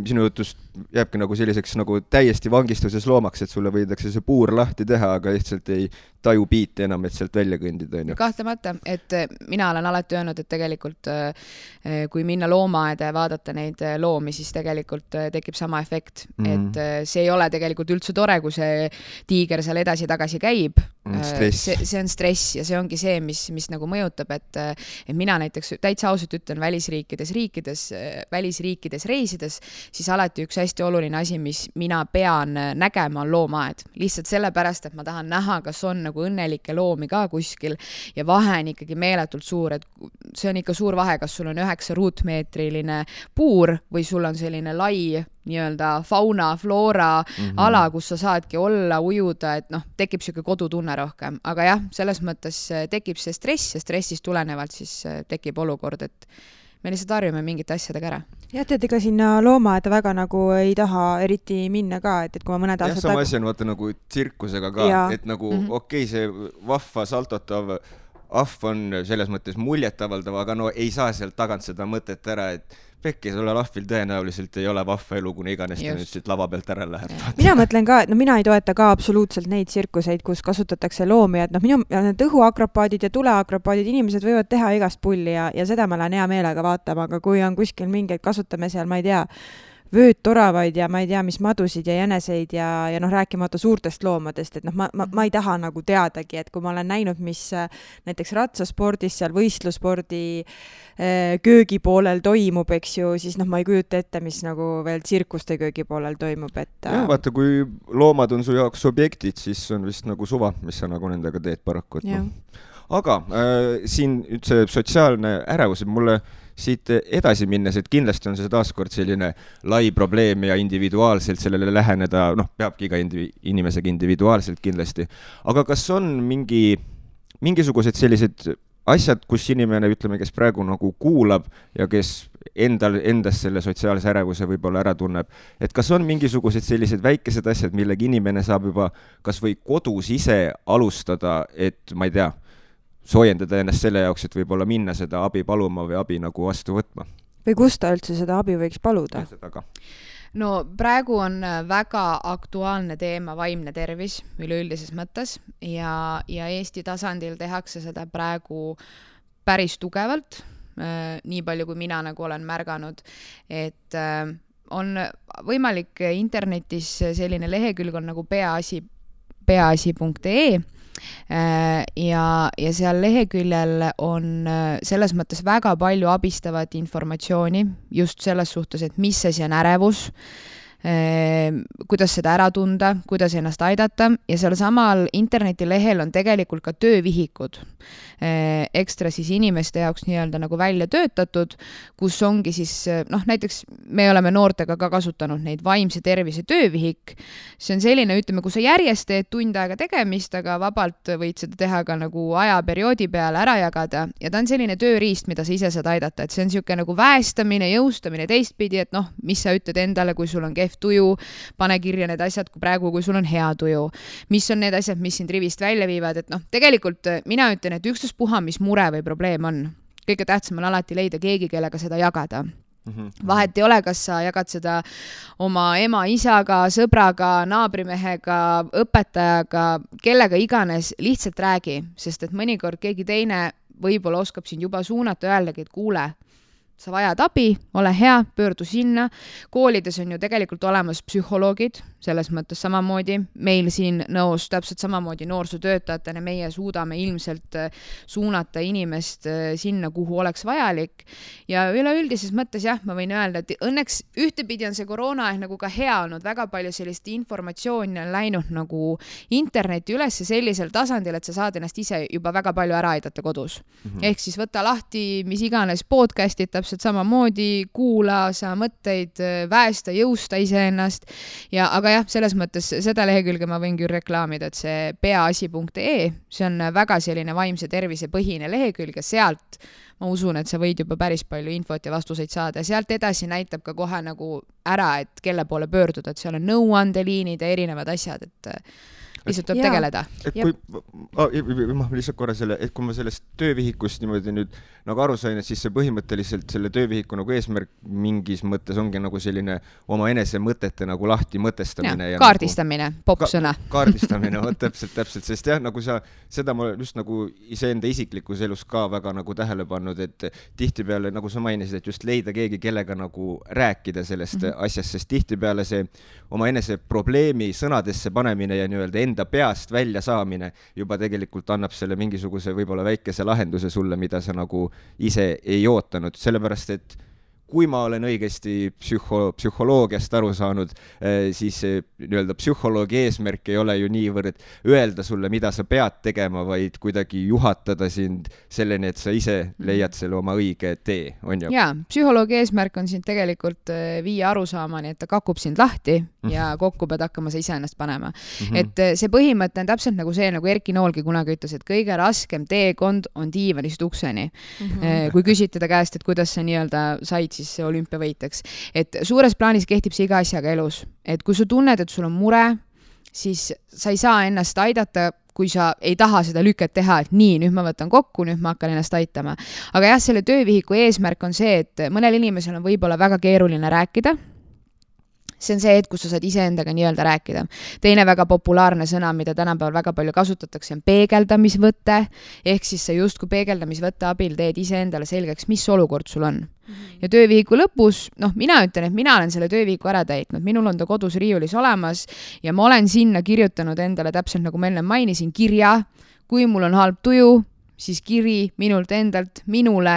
sinu jutust jääbki nagu selliseks nagu täiesti vangistuses loomaks, et sulle võidakse see puur lahti teha, aga lihtsalt ei taju piite enam, et sealt välja kõndida. Kahtlemata, et mina olen alati öelnud, et tegelikult kui minna loomaaeda ja vaadata neid loomi, siis tegelikult tekib sama efekt. Et see ei ole tegelikult üldse tore, kui see tiiger seal edasi-tagasi käib. See on stress ja see ongi see, mis nagu mõjutab, et mina näiteks täitsa ausalt ütlen välisriikides reisides, siis alati üks hästi oluline asi, mis mina pean nägema, on loomaaed. Lihtsalt sellepärast, et ma tahan näha, kas on nagu õnnelikke loomi ka kuskil ja vahe on ikkagi meeletult suur, et see on ikka suur vahe, kas sul on 9 ruutmeetriline puur või sul on selline lai nii-öelda fauna, flora ala, kus sa saadki olla, ujuda, et tekib siuke kodutunne rohkem. Aga jah, selles mõttes tekib see stress ja stressist tulenevalt siis tekib olukord, et me lihtsalt harjume mingite asjadega ära. Jah, tead, ega sinna loomaaeda väga nagu ei taha eriti minna ka, et kui ma mõned aastad... Jah, sama asi on vaata nagu tsirkusega ka, et nagu okei, see vahva saltotav ahv on selles mõttes muljetavaldav, aga ei saa sealt tagant seda mõtet ära, et pekki, sulle lahvil tõenäoliselt ei ole vahva elu, kuna iganes ta nüüd siit lava pealt ära läheb. Mina mõtlen ka, et mina ei toeta ka absoluutselt neid tsirkuseid, kus kasutatakse loomi, et need õhuakropaadid ja tuleakropaadid, inimesed võivad teha igast pulli ja seda ma lähen hea meelega vaatama, aga kui on kuskil mingeid, kasutame seal, ma ei tea, vöödtoravaid ja ma ei tea, mis madusid ja jäneseid ja noh, rääkimata suurtest loomadest, et noh, ma ei taha nagu teadagi, et kui ma olen näinud, mis näiteks ratsaspordis, seal võistlusspordi köögipoolel toimub, eks ju, siis noh, ma ei kujuta ette, mis nagu veel tsirkuste köögipoolel toimub, et ja, vaata, kui loomad on su jaoks objektid, siis on vist nagu suva, mis sa nagu nendega teed paraku, et noh. Aga siin see sotsiaalne ärevus, mulle siit edasi minnes, et kindlasti on see taaskord selline lai probleem ja individuaalselt sellele läheneda, noh, peabki iga inimesega individuaalselt kindlasti. Aga kas on mingisugused sellised asjad, kus inimene, ütleme, kes praegu nagu kuulab ja kes endas selle sotsiaalse ärevuse võib-olla ära tunneb, et kas on mingisugused sellised väikesed asjad, millega inimene saab juba kas või kodus ise alustada, et ma ei tea, soojendada ennast selle jaoks, et võib-olla minna seda abi paluma või abi nagu vastu võtma. Või kus ta üldse seda abi võiks paluda? No praegu on väga aktuaalne teema vaimne tervis üleüldises mõttes ja Eesti tasandil tehakse seda praegu päris tugevalt, nii palju kui mina nagu olen märganud, et on võimalik internetis selline lehekülg on nagu peaasi.ee ja seal leheküljel on selles mõttes väga palju abistavat informatsiooni just selles suhtes, et mis asi on ärevus, kuidas seda ära tunda, kuidas ennast aidata ja seal samal internetilehel on tegelikult ka töövihikud ekstra siis inimeste jaoks nii-öelda nagu välja töötatud, kus ongi siis, noh näiteks me oleme noortega ka kasutanud neid vaimse tervise töövihik. See on selline, ütleme, kui sa järjest teed tund aega tegemist, aga vabalt võid seda teha ka nagu ajaperioodi peale ära jagada ja ta on selline tööriist, mida sa ise saad aidata, et see on siuke nagu väestamine, jõustamine teistpidi, et noh, mis sa ütled endale, kui sul on kehv tuju, pane kirja need asjad kui praegu, kui sul on hea tuju. Mis on need asjad, mis sind rivist välja viivad, et noh, tegelikult mina ütlen, et puha, mis mure või probleem on. Kõige tähtsam on alati leida keegi, kellega seda jagada. Vahet ei ole, kas sa jagad seda oma ema, isaga, sõbraga, naabrimehega, õpetajaga, kellega iganes, lihtsalt räägi, sest et mõnikord keegi teine võib-olla oskab sind juba suunata öeldagi, et kuule, sa vajad abi, ole hea, pöördu sinna. Koolides on ju tegelikult olemas psühholoogid, selles mõttes samamoodi. Meil siin nõus täpselt samamoodi noorsootöötajatena meie suudame ilmselt suunata inimest sinna, kuhu oleks vajalik. Ja üleüldises mõttes jah, ma võin öelda, et õnneks ühtepidi on see koroonaaeg nagu ka hea olnud. Väga palju sellist informatsiooni on läinud nagu interneti üles sellisel tasandil, et sa saad ennast ise juba väga palju ära aidata kodus. Ehk siis võta lahti mis iganes podcastid, täpselt samamoodi, kuula sa mõtteid, väesta, jõusta iseennast. Aga jah, selles mõttes seda lehekülge ma võin küll reklaamida, et see peaasi.ee, see on väga selline vaimse tervise põhine lehekülg ja sealt ma usun, et sa võid juba päris palju infot ja vastuseid saada ja sealt edasi näitab ka kohe nagu ära, et kelle poole pöörduda, et seal on nõuandeliinid ja erinevad asjad, et lihtsalt tuleb tegeleda. Et kui ma lihtsalt korra et kui ma sellest töövihikust niimoodi nüüd nagu aru sain, et siis see põhimõtteliselt selle töövihiku nagu eesmärk mingis mõttes ongi nagu selline oma enese mõtete nagu lahti mõtestamine. Ja kaardistamine, nagu, popsõna. Kaardistamine, täpselt, sest jah, nagu seda ma just nagu iseenda isiklikus elus ka väga nagu tähele pannud, et tihtipeale, nagu sa mainisid, et just leida keegi, kellega nagu rääkida sellest asjast, sest tihtipeale see oma enese probleemi sõnadesse panemine ja nii-öelda enda peast välja saamine juba tegelikult annab selle mingisuguse võib-olla väikese lahenduse sulle, mida sa nagu ise ei ootanud, sellepärast et kui ma olen õigesti psühholoogiast aru saanud, siis nii-öelda psühholoogi eesmärk ei ole ju niivõrd öelda sulle, mida sa pead tegema, vaid kuidagi juhatada sind selleni, et sa ise leiad selle oma õige tee, on ju? Jaa, psühholoogi eesmärk on sind tegelikult viia arusaamani, et ta kakub sind lahti ja kokku pead hakkama sa ise ennast panema. Et see põhimõte on täpselt nagu see, nagu Erki Noolgi kunagi ütles, et kõige raskem teekond on diivanist ukseni. Kui küsite ta käest, et kuidas sa nii-öelda said siis olümpiavõiteks. Et suures plaanis kehtib see iga asjaga elus. Et kui sa tunned, et sul on mure, siis sa ei saa ennast aidata, kui sa ei taha seda lüket teha, et nii, nüüd ma võtan kokku, nüüd ma hakkan ennast aitama. Aga jah, selle töövihiku eesmärk on see, et mõnel inimesel on võib-olla väga keeruline rääkida. see on see hetk, kus sa saad iseendaga nii-öelda rääkida. Teine väga populaarne sõna, mida tänapäeval väga palju kasutatakse, on peegeldamisvõte, ehk siis sa justkui peegeldamisvõtte abil teed iseendale selgeks, mis olukord sul on. Ja töövihiku lõpus, mina ütlen, et mina olen selle töövihiku ära täitnud, minul on ta kodus riiulis olemas ja ma olen sinna kirjutanud endale täpselt nagu ma enne mainisin, kirja, kui mul on halb tuju, siis kiri minult endalt minule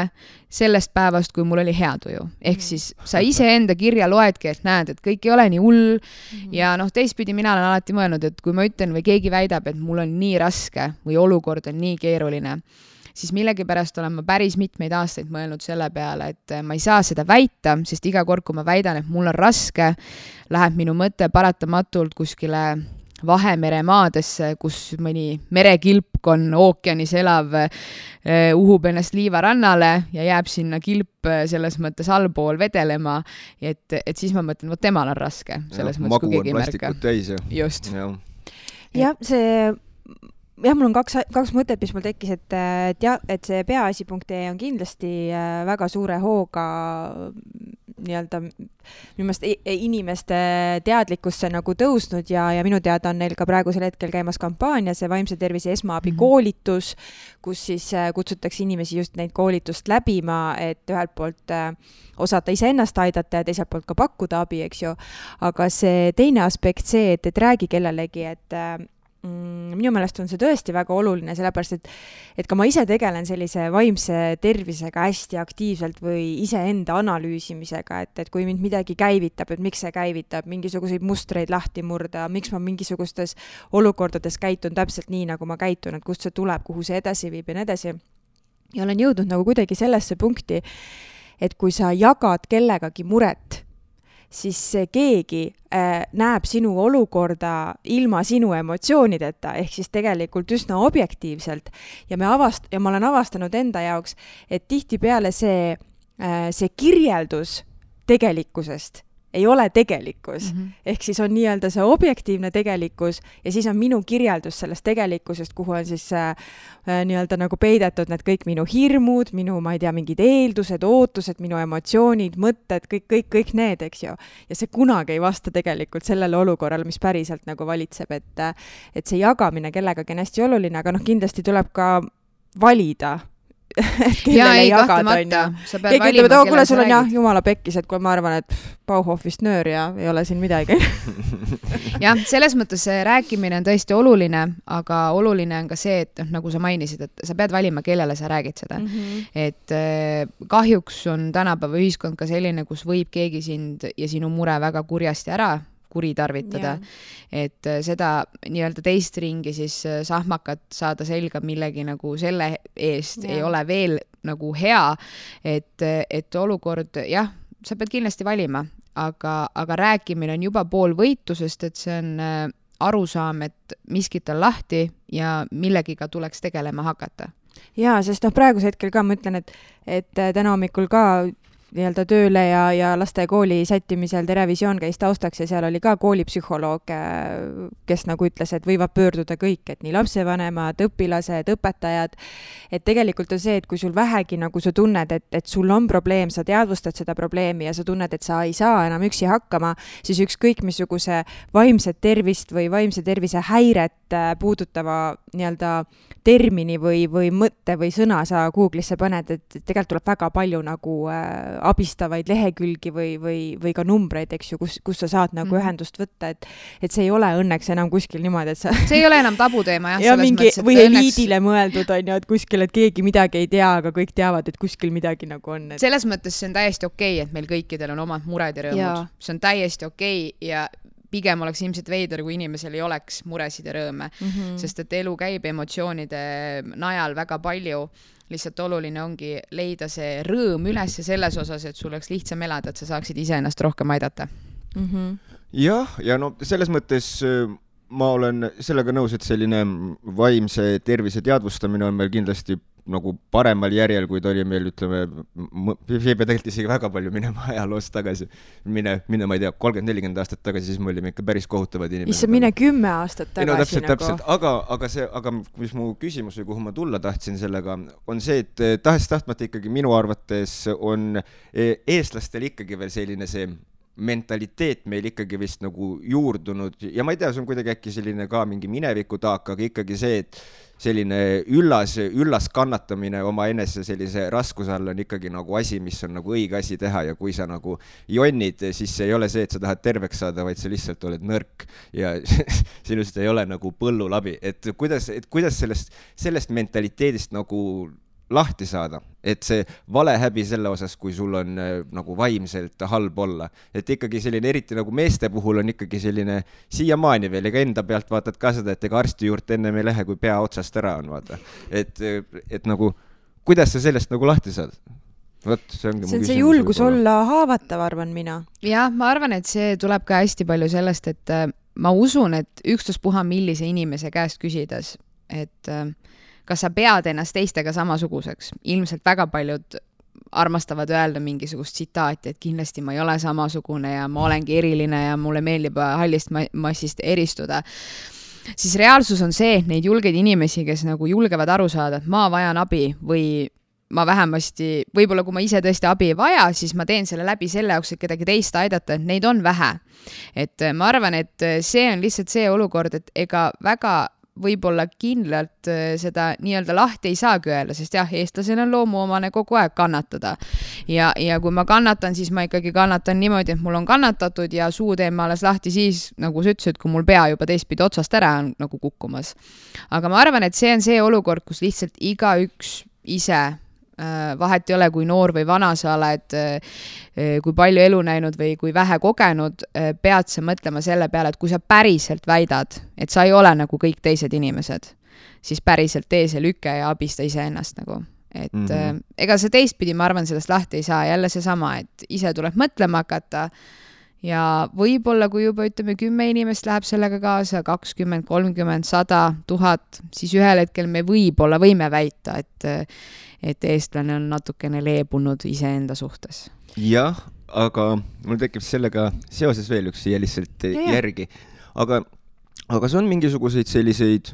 sellest päevast, kui mul oli hea tuju. Ehk siis sa iseenda kirja loedki, et näed, et kõik ei ole nii hull ja teistpidi mina olen alati mõelnud, et kui ma ütlen või keegi väidab, et mul on nii raske või olukord on nii keeruline, siis millegipärast olen ma päris mitmeid aastaid mõelnud selle peale, et ma ei saa seda väita, sest iga kord, kui ma väidan, et mul on raske, läheb minu mõte paratamatult kuskile Vahemere maadesse, kus mõni merekilpkon ookeanis elav uhub ennast liivarannale ja jääb sinna kilp selles mõttes allpool vedelema, et siis ma mõtlen, et temal on raske. Selles mõttes, magu on plastikut täis. Just. Jah, mul on kaks mõtet, mis mul tekkis, et see peaasi.ee on kindlasti väga suure hooga nii-öelda minu meelest inimeste teadlikkusse nagu tõusnud ja minu teada on neil ka praegusel hetkel käimas kampaania, see vaimse tervise esmaabi koolitus, kus siis kutsutakse inimesi just neid koolitust läbima, et ühelt poolt osata iseennast aidata ja teiselt poolt ka pakkuda abi, eks ju. Aga see teine aspekt see, et räägi kellelegi, et minu meelest on see tõesti väga oluline, sellepärast, et ka ma ise tegelen sellise vaimse tervisega hästi aktiivselt või iseenda analüüsimisega, et kui mind midagi käivitab, et miks see käivitab, mingisuguseid mustreid lahti murda, miks ma mingisugustes olukordades käitun täpselt nii, nagu ma käitun, et kust see tuleb, kuhu see edasi viib ja nii edasi. Ja olen jõudnud nagu kuidagi sellesse punkti, et kui sa jagad kellegagi muret, siis keegi näeb sinu olukorda ilma sinu emotsioonideta, ehk siis tegelikult üsna objektiivselt. Ja ma olen avastanud enda jaoks, et tihtipeale see kirjeldus tegelikkusest ei ole tegelikkus. Ehk siis on nii-öelda see objektiivne tegelikkus ja siis on minu kirjeldus sellest tegelikkusest, kuhu on siis nii-öelda nagu peidetud need kõik minu hirmud, minu, ma ei tea, mingid eeldused, ootused, minu emotsioonid, mõtted, kõik need, eks ju. Ja see kunagi ei vasta tegelikult sellele olukorrale, mis päriselt nagu valitseb, et see jagamine kellegagi on hästi oluline, aga kindlasti tuleb ka valida, et kellele jagada on ja keegi ütleb, et kuule, sul on jah jumala pekkis, et kui ma arvan, et Bauhofist nöör ja ei ole siin midagi. Jah, selles mõttes see rääkimine on tõesti oluline, aga oluline on ka see, et nagu sa mainisid, et sa pead valima, kellele sa räägid seda. Et kahjuks on tänapäeva ühiskond ka selline, kus võib keegi sind ja sinu mure väga kurjasti ära kuritarvitada, et seda nii-öelda teist ringi siis sahmakat saada selga millegi nagu selle eest ei ole veel nagu hea, et olukord, jah, sa pead kindlasti valima, aga rääkimine on juba pool võitlusest, et see on arusaam, et miskit on lahti ja millegiga tuleks tegelema hakata. Jaa, sest praeguse hetkel ka ma ütlen, et täna hommikul ka nii-öelda tööle ja laste kooli sättimisel Terevisioon käis taustaks ja seal oli ka koolipsühholoog, kes nagu ütles, et võivad pöörduda kõik, et nii lapsevanemad, õpilased, õpetajad, et tegelikult on see, et kui sul vähegi nagu sa tunned, et sul on probleem, sa teadvustad seda probleemi ja sa tunned, et sa ei saa enam üksi hakkama, siis ükskõik missuguse vaimset tervist või vaimse tervise häiret puudutava nii-öelda termini või mõtte või sõna sa Google'isse paned, et tegelikult tuleb väga palju nagu abistavaid lehekülgi või ka numbreid, eks ju, kus sa saad nagu ühendust võtta, et see ei ole õnneks enam kuskil niimoodi, et sa... See ei ole enam tabuteema, jah. Ja mingi, või eliidile mõeldud on ju, et kuskil, et keegi midagi ei tea, aga kõik teavad, et kuskil midagi nagu on. Selles mõttes see on täiesti okei, et meil kõikidel on omad mured ja rõõmud. See on täiesti okei ja pigem oleks ilmselt veider, kui inimesel ei oleks muresid ja rõõme, sest et elu käib emotsioonide najal väga palju. Lihtsalt oluline ongi leida see rõõm üles selles osas, et sul oleks lihtsam elada, et sa saaksid iseennast rohkem aidata. Jah, ja no selles mõttes ma olen sellega nõus, et selline vaimse tervise teadvustamine on meil kindlasti nagu paremal järjel, kui ta oli meil, ütleme, ei pea tegelikult isegi väga palju minema ajaloost tagasi. Mine, ma ei tea, 30-40 aastat tagasi, siis me olime ikka päris kohutavad inimesed. Issa mine 10 aastat tagasi. No, täpselt. Aga mis mu küsimus või kuhu ma tulla tahtsin sellega, on see, et tahtmata ikkagi minu arvates on eestlastel ikkagi veel selline see mentaliteet meil ikkagi vist nagu juurdunud ja ma ei tea, see on kuidagi äkki selline ka mingi mineviku taak, aga ikkagi see, et selline üllas kannatamine oma enese sellise raskuse all on ikkagi nagu asi, mis on nagu õige asi teha ja kui sa nagu jonnid, siis see ei ole see, et sa tahad terveks saada, vaid sa lihtsalt oled nõrk ja sinust ei ole nagu põllulabi, et kuidas sellest mentaliteedist nagu lahti saada, et see valehäbi selle osas, kui sul on nagu vaimselt halb olla. Et ikkagi selline, eriti nagu meeste puhul on ikkagi selline siiamaani veel, ega enda pealt vaatad ka seda, et ega arsti juurde enne me ei lähe, kui pea otsast ära on, vaata. Et nagu, kuidas sa sellest nagu lahti saad? Võt, see on see julgus olla haavatav, arvan mina. Ja, ma arvan, et see tuleb ka hästi palju sellest, et ma usun, et ükstaspuha millise inimese käest küsides, et kas sa pead ennast teistega samasuguseks. Ilmselt väga paljud armastavad öelda mingisugust tsitaati, et kindlasti ma ei ole samasugune ja ma olengi eriline ja mulle meeldib hallist massist eristuda. Siis reaalsus on see, et neid julgeid inimesi, kes nagu julgevad aru saada, et ma vajan abi või ma vähemasti, võib-olla kui ma ise tõesti abi ei vaja, siis ma teen selle läbi selle jaoks, et kedagi teist aidata, et neid on vähe. Et ma arvan, et see on lihtsalt see olukord, et ega väga võib-olla kindlalt seda nii-öelda lahti ei saagi öelda, sest jah, eestlasel on loomuomane kogu aeg kannatada. Ja kui ma kannatan, siis ma ikkagi kannatan niimoodi, et mul on kannatatud ja suu teen ma alles lahti siis, nagu sa ütlesid, kui mul pea juba teistpidi otsast ära on nagu kukkumas. Aga ma arvan, et see on see olukord, kus lihtsalt igaüks ise vahet ei ole, kui noor või vana sa oled, kui palju elu näinud või kui vähe kogenud, pead sa mõtlema selle peale, et kui sa päriselt väidad, et sa ei ole nagu kõik teised inimesed, siis päriselt tee see lüke ja abista ise ennast nagu. Et ega see teistpidi, ma arvan, sellest lahti ei saa, jälle see sama, et ise tuleb mõtlema hakata ja võib-olla, kui juba ütleme 10 inimest läheb sellega kaasa, 20, 30, 100, 1000, siis ühel hetkel me võime väita, et eestlane on natukene leebunud iseenda suhtes. Jah, aga mul tekib sellega seoses veel üks siia lihtsalt järgi. Aga see on mingisuguseid selliseid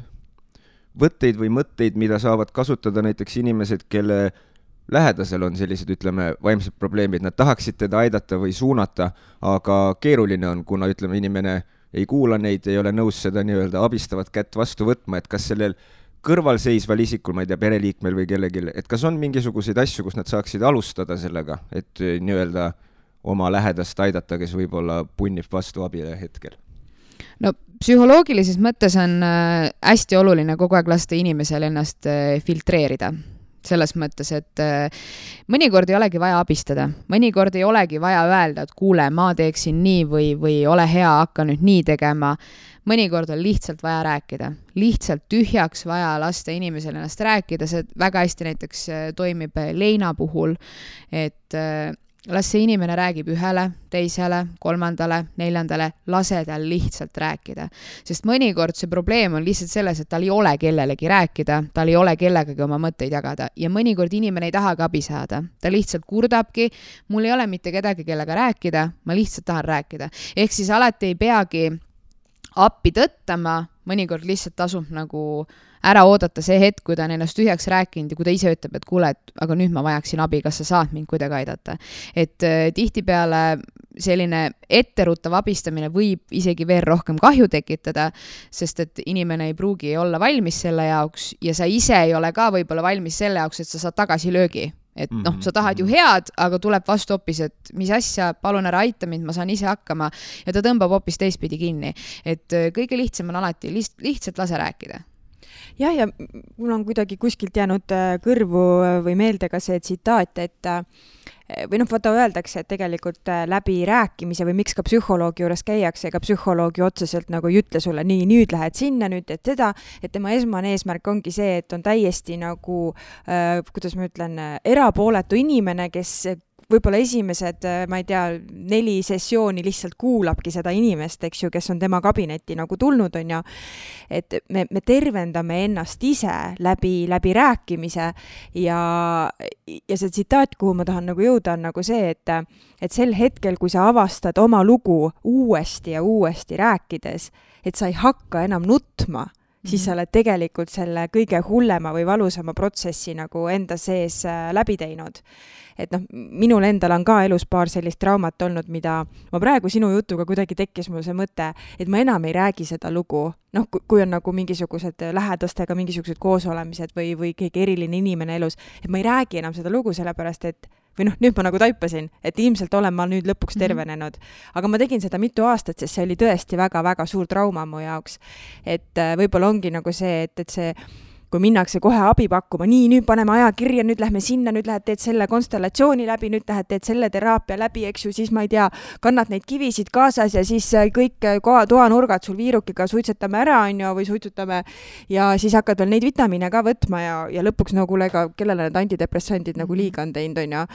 võtteid või mõtteid, mida saavad kasutada näiteks inimesed, kelle lähedasel on sellised, ütleme, vaimsed probleemid. Nad tahaksid teda aidata või suunata, aga keeruline on, kuna ütleme, inimene ei kuula neid, ei ole nõus seda nii-öelda abistavat kätt vastu võtma, et kas sellel kõrvalseisval isikul, ma ei tea, pereliikmel või kellelgi, et kas on mingisuguseid asju, kus nad saaksid alustada sellega, et nii-öelda oma lähedast aidata, kes võib-olla punnib vastu abile hetkel? No psühholoogilises mõttes on hästi oluline kogu aeg lasta inimesel ennast filtreerida. Selles mõttes, et mõnikord ei olegi vaja abistada. Mõnikord ei olegi vaja öelda, et kuule, ma teeksin nii või ole hea, hakka nüüd nii tegema. Mõnikord on lihtsalt vaja rääkida. Lihtsalt tühjaks vaja lasta inimesel ennast rääkida. See väga hästi näiteks toimib leina puhul, et las see inimene räägib ühele, teisele, kolmandale, neljandale, lase tal lihtsalt rääkida. Sest mõnikord see probleem on lihtsalt selles, et tal ei ole kellelegi rääkida, tal ei ole kellegagi oma mõtteid jagada ja mõnikord inimene ei tahagi abi saada. Ta lihtsalt kurdabki, mul ei ole mitte kedagi kellega rääkida, ma lihtsalt tahan rääkida. Ehk siis alati ei peagi appi tõttama, mõnikord lihtsalt tasub nagu ära oodata see hetk, kui ta on ennast tühjaks rääkinud ja kui ta ise ütleb, et kuule, aga nüüd ma vajaksin abi, kas sa saad mind kuidagi aidata. Et tihtipeale selline etteruttav abistamine võib isegi veel rohkem kahju tekitada, sest et inimene ei pruugi olla valmis selle jaoks ja sa ise ei ole ka võib-olla valmis selle jaoks, et sa saad tagasi löögi. Et sa tahad ju head, aga tuleb vastu hoopis, et mis asja, palun ära aita mind, ma saan ise hakkama ja ta tõmbab hoopis teistpidi kinni. Et kõige lihtsam on alati lihtsalt lase rääkida. Jah, ja mul on kuidagi kuskilt jäänud kõrvu või meelde ka see tsitaat, et või vaata öeldakse, et tegelikult läbi rääkimise või miks ka psühholoogi juures käiakse, ega psühholoogi otseselt nagu ei ütle sulle nii, nüüd lähed sinna, nüüd et seda, et tema esmane eesmärk ongi see, et on täiesti nagu, kuidas ma ütlen, erapooletu inimene, kes võib-olla esimesed, ma ei tea, 4 sessiooni lihtsalt kuulabki seda inimest, eks ju, kes on tema kabinetti nagu tulnud, on ja et me tervendame ennast ise läbi rääkimise ja see tsitaat, kuhu ma tahan nagu jõuda, on nagu see, et sel hetkel, kui sa avastad oma lugu uuesti ja uuesti rääkides, et sa ei hakka enam nutma, siis sa oled tegelikult selle kõige hullema või valusama protsessi nagu enda sees läbi teinud. Et noh, minul endal on ka elus paar sellist traumat olnud, mida ma praegu sinu jutuga kuidagi tekkis mul see mõte, et ma enam ei räägi seda lugu. Noh, kui on nagu mingisugused lähedastega mingisugused koosolemised või keegi eriline inimene elus, et ma ei räägi enam seda lugu sellepärast, et või noh, nüüd ma nagu taipasin, et ilmselt olen ma nüüd lõpuks tervenenud. Aga ma tegin seda mitu aastat, sest see oli tõesti väga-väga suur trauma mu jaoks. Et võib-olla ongi nagu see, et see, kui minnakse kohe abi pakkuma, nii, nüüd paneme aja kirja, nüüd lähme sinna, nüüd lähed teed selle konstellatsiooni läbi, nüüd lähed teed selle teraapia läbi, eks ju, siis ma ei tea, kannad neid kivisid kaasas ja siis kõik toanurgad sul viirukiga suitsetame ära, on ju, või suitsutame ja siis hakkad veel neid vitamiine ka võtma ja lõpuks no kuule, kellele need antidepressandid nagu liiga on teinud, on ju.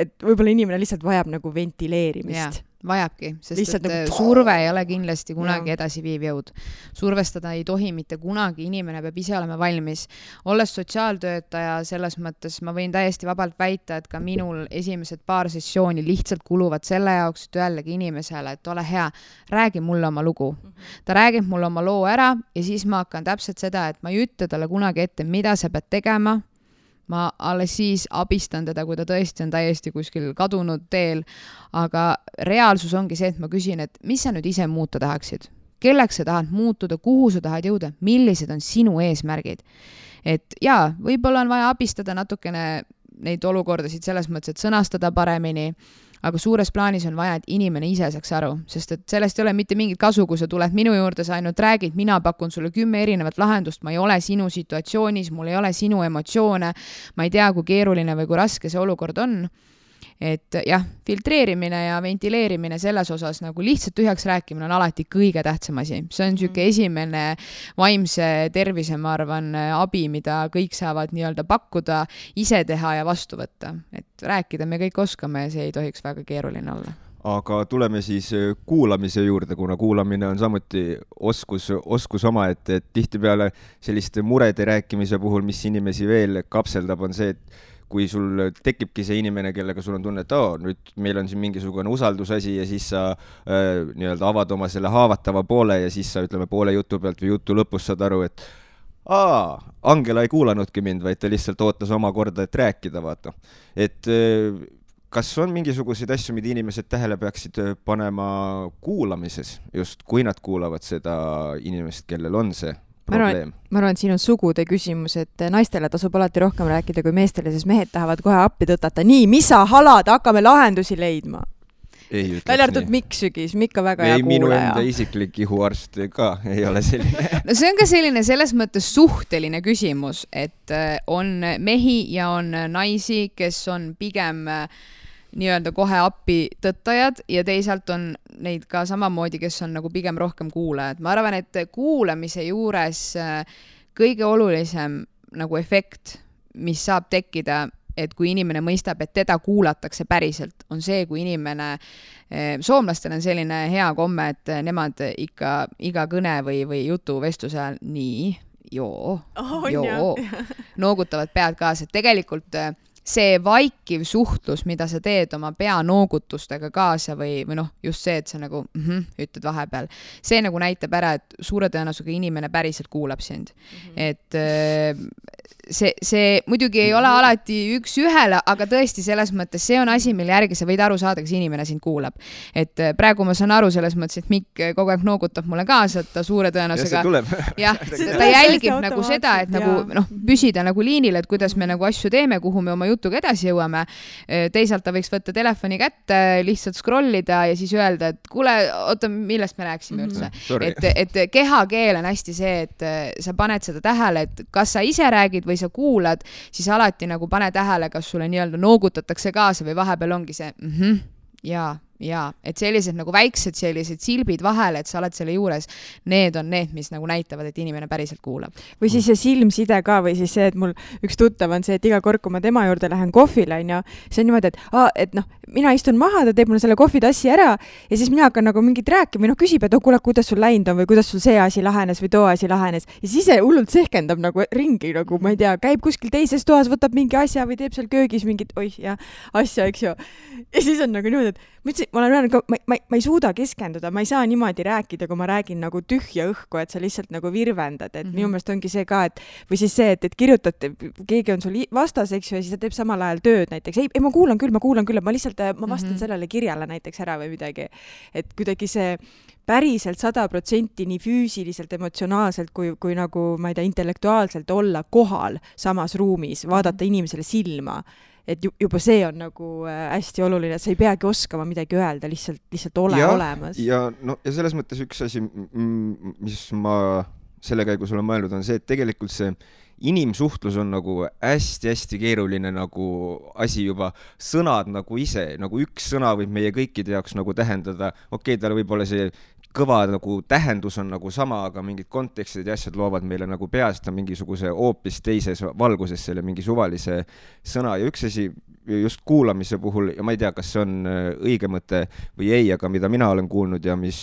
Et võib-olla inimene lihtsalt vajab nagu ventileerimist. Vajabki, sest et nagu surve ei ole kindlasti kunagi edasiviiv jõud. Survestada ei tohi mitte kunagi, inimene peab ise olema valmis. Olles sotsiaaltöötaja, selles mõttes ma võin täiesti vabalt väita, et ka minul esimesed paar sessiooni lihtsalt kuluvad selle jaoks, et öeldagi inimesele, et ole hea, räägi mulle oma lugu. Ta räägib mulle oma loo ära ja siis ma hakkan täpselt seda, et ma ei ütle talle kunagi ette, mida sa pead tegema. Ma alles siis abistan teda, kui ta tõesti on täiesti kuskil kadunud teel, aga reaalsus ongi see, et ma küsin, et mis sa nüüd ise muuta tahaksid? Kelleks sa tahad muutuda, kuhu sa tahad jõuda, millised on sinu eesmärgid? Et jaa, võib-olla on vaja abistada natukene neid olukordasid selles mõttes, et sõnastada paremini, aga suures plaanis on vaja, et inimene ise saaks aru, sest et sellest ei ole mitte mingit kasu, kui sa tuled minu juurde, sa ainult räägid, mina pakun sulle 10 erinevat lahendust, ma ei ole sinu situatsioonis, mul ei ole sinu emotsioone, ma ei tea, kui keeruline või kui raske see olukord on. Et jah, filtreerimine ja ventileerimine selles osas nagu lihtsalt tühjaks rääkimine on alati kõige tähtsam asi. See on niisugune esimene vaimse tervise, ma arvan, abi, mida kõik saavad nii-öelda pakkuda, ise teha ja vastu võtta. Et rääkida me kõik oskame ja see ei tohiks väga keeruline olla. Aga tuleme siis kuulamise juurde, kuna kuulamine on samuti oskus oma, et tihtipeale selliste murede rääkimise puhul, mis inimesi veel kapseldab, on see, et kui sul tekibki see inimene, kellega sul on tunne, et nüüd meil on siin mingisugune usaldusasi ja siis sa nii-öelda avad oma selle haavatava poole ja siis sa ütleme poole jutu pealt või jutu lõpus saad aru, et Angela ei kuulanudki mind, vaid ta lihtsalt ootas oma korda, et rääkida, vaata. Et kas on mingisuguseid asju, mida inimesed tähele peaksid panema kuulamises, just kui nad kuulavad seda inimest, kellel on see probleem? Ma arvan, et siin on sugude küsimus, et naistele tasub alati rohkem rääkida kui meestele, sest mehed tahavad kohe appi tõtata. Nii, mis sa halad, hakkame lahendusi leidma. Välja arvatud Mikk Sügis, Mikk on väga hea kuulaja. Minu enda isiklik ihuarst ka ei ole selline. No see on ka selline selles mõttes suhteline küsimus, et on mehi ja on naisi, kes on pigem nii-öelda kohe appi tõttajad ja teisalt on neid ka samamoodi, kes on nagu pigem rohkem kuulajad. Ma arvan, et kuulamise juures kõige olulisem nagu efekt, mis saab tekkida, et kui inimene mõistab, et teda kuulatakse päriselt, on see, kui inimene, soomlastel on selline hea komme, et nemad ikka iga kõne või jutu vestluse ajal nii, joo, noogutavad pead kaasa, et tegelikult see vaikiv suhtlus, mida sa teed oma pea noogutustega kaasa või noh, just see, et sa nagu ütled vahepeal, see nagu näitab ära, et suure tõenäosusega inimene päriselt kuulab sind. Et see muidugi ei ole alati üks ühele, aga tõesti selles mõttes see on asi, mille järgi sa võid aru saada, kas inimene sind kuulab. Et praegu ma saan aru selles mõttes, et Mikk kogu aeg noogutab mulle kaasa, et ta suure tõenäosusega ta jälgib nagu seda, et nagu noh, püsida nagu liinil, et kuidas me nagu asju teeme, kuhu me oma jutuga edasi jõuame. Teisalt ta võiks võtta telefoni kätte, lihtsalt scrollida ja siis öelda, et kuule, oota, millest me rääksime üldse. Et kehakeel on hästi see, et sa paned seda tähele, et kas sa ise räägid või sa kuulad, siis alati nagu pane tähele, kas sulle nii-öelda noogutatakse kaasa või vahepeal ongi see jaa, et sellised nagu väiksed sellised silbid vahele, et sa oled selle juures, need on need, mis nagu näitavad, et inimene päriselt kuulab. Või siis see silmside ka, või siis see, et mul üks tuttav on see, et iga kord, kui ma tema juurde lähen kohvile, see on niimoodi, et noh, mina istun maha, ta teeb mulle selle kohvitassi ära ja siis mina hakkan nagu mingit rääkima või küsib, et kuule, kuidas sul läinud on või kuidas sul see asi lahenes või too asi lahenes ja siis ise hullult sehkendab nagu ringi, nagu ma ei tea, käib kuskil teises toas, võtab mingi asja või teeb seal köögis mingit asja, eks ju. Ja siis on nagu niimoodi, et ma olen öelnud, ma ei suuda keskenduda, ma ei saa niimoodi rääkida, kui ma räägin nagu tühja õhku, et sa lihtsalt nagu virvendad, et minu meelest ongi see ka, et või siis see, et kirjutate, keegi on sul vastas, eks ju, ja siis ta teeb samal ajal tööd näiteks. Ei, ma kuulan küll, et ma lihtsalt, ma vastan sellele kirjale näiteks ära või midagi. Et kuidagi see päriselt 100% nii füüsiliselt, emotsionaalselt kui nagu, ma ei tea, intellektuaalselt olla kohal samas ruumis, vaadata inimesele silma. Et juba see on nagu hästi oluline, et sa ei peagi oskama midagi öelda, lihtsalt ole olemas. Ja selles mõttes üks asi, mis ma selle käigus olen mõelnud, on see, et tegelikult see inimsuhtlus on nagu hästi-hästi keeruline nagu asi juba, sõnad nagu ise, nagu üks sõna võib meie kõikide jaoks nagu tähendada, tal võib-olla see kõva nagu tähendus on nagu sama, aga mingid kontekstid ja asjad loovad meile nagu peast mingisuguse hoopis teises valguses selle mingi suvalise sõna ja üks asi just kuulamise puhul, ja ma ei tea, kas see on õige mõte või ei, aga mida mina olen kuulnud ja mis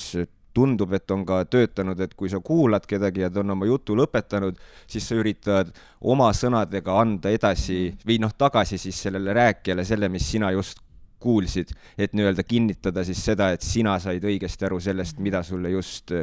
tundub, et on ka töötanud, et kui sa kuulad kedagi ja ta on oma jutu lõpetanud, siis sa üritad oma sõnadega anda edasi või tagasi siis sellele rääkijale selle, mis sina just kuulsid, et nii-öelda kinnitada siis seda, et sina said õigesti aru sellest, mida sulle just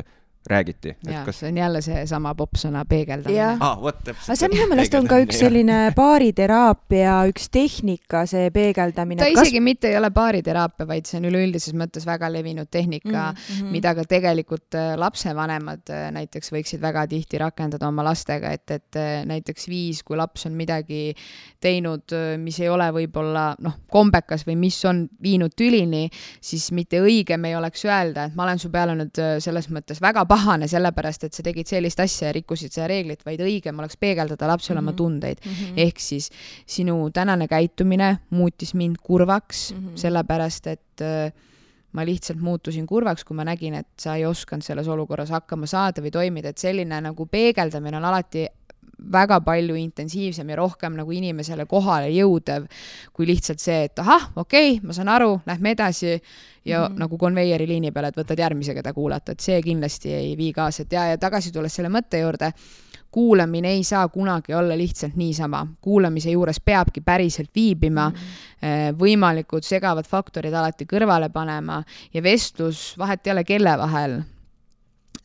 räägiti. Ja, see on jälle see sama popsõna peegeldamine. Aga see minu meelest on ka üks selline baariteraapia, üks tehnika, see peegeldamine. Ta isegi mitte ei ole baariteraapia, vaid see on üleüldises mõttes väga levinud tehnika, mida ka tegelikult lapsevanemad näiteks võiksid väga tihti rakendada oma lastega, et näiteks kui laps on midagi teinud, mis ei ole võib-olla kombekas või mis on viinud tülini, siis mitte õigem ei oleks öelda, et ma olen su peale nüüd selles mõttes väga pahane sellepärast, et sa tegid sellist asja ja rikkusid seda reeglit, vaid õigem oleks peegeldada lapsele oma tundeid. Ehk siis sinu tänane käitumine muutis mind kurvaks, sellepärast, et ma lihtsalt muutusin kurvaks, kui ma nägin, et sa ei osanud selles olukorras hakkama saada või toimida, et selline nagu peegeldamine on alati väga palju intensiivsem ja rohkem nagu inimesele kohale jõudev, kui lihtsalt see, et ma saan aru, lähme edasi ja nagu konveieri liini peale, et võtad järgmise, keda kuulata, et see kindlasti ei vii kaasa. Ja tagasi tulles selle mõtte juurde, kuulamine ei saa kunagi olla lihtsalt niisama. Kuulamise juures peabki päriselt viibima, võimalikud segavad faktorid alati kõrvale panema ja vestlus vahet ei ole kelle vahel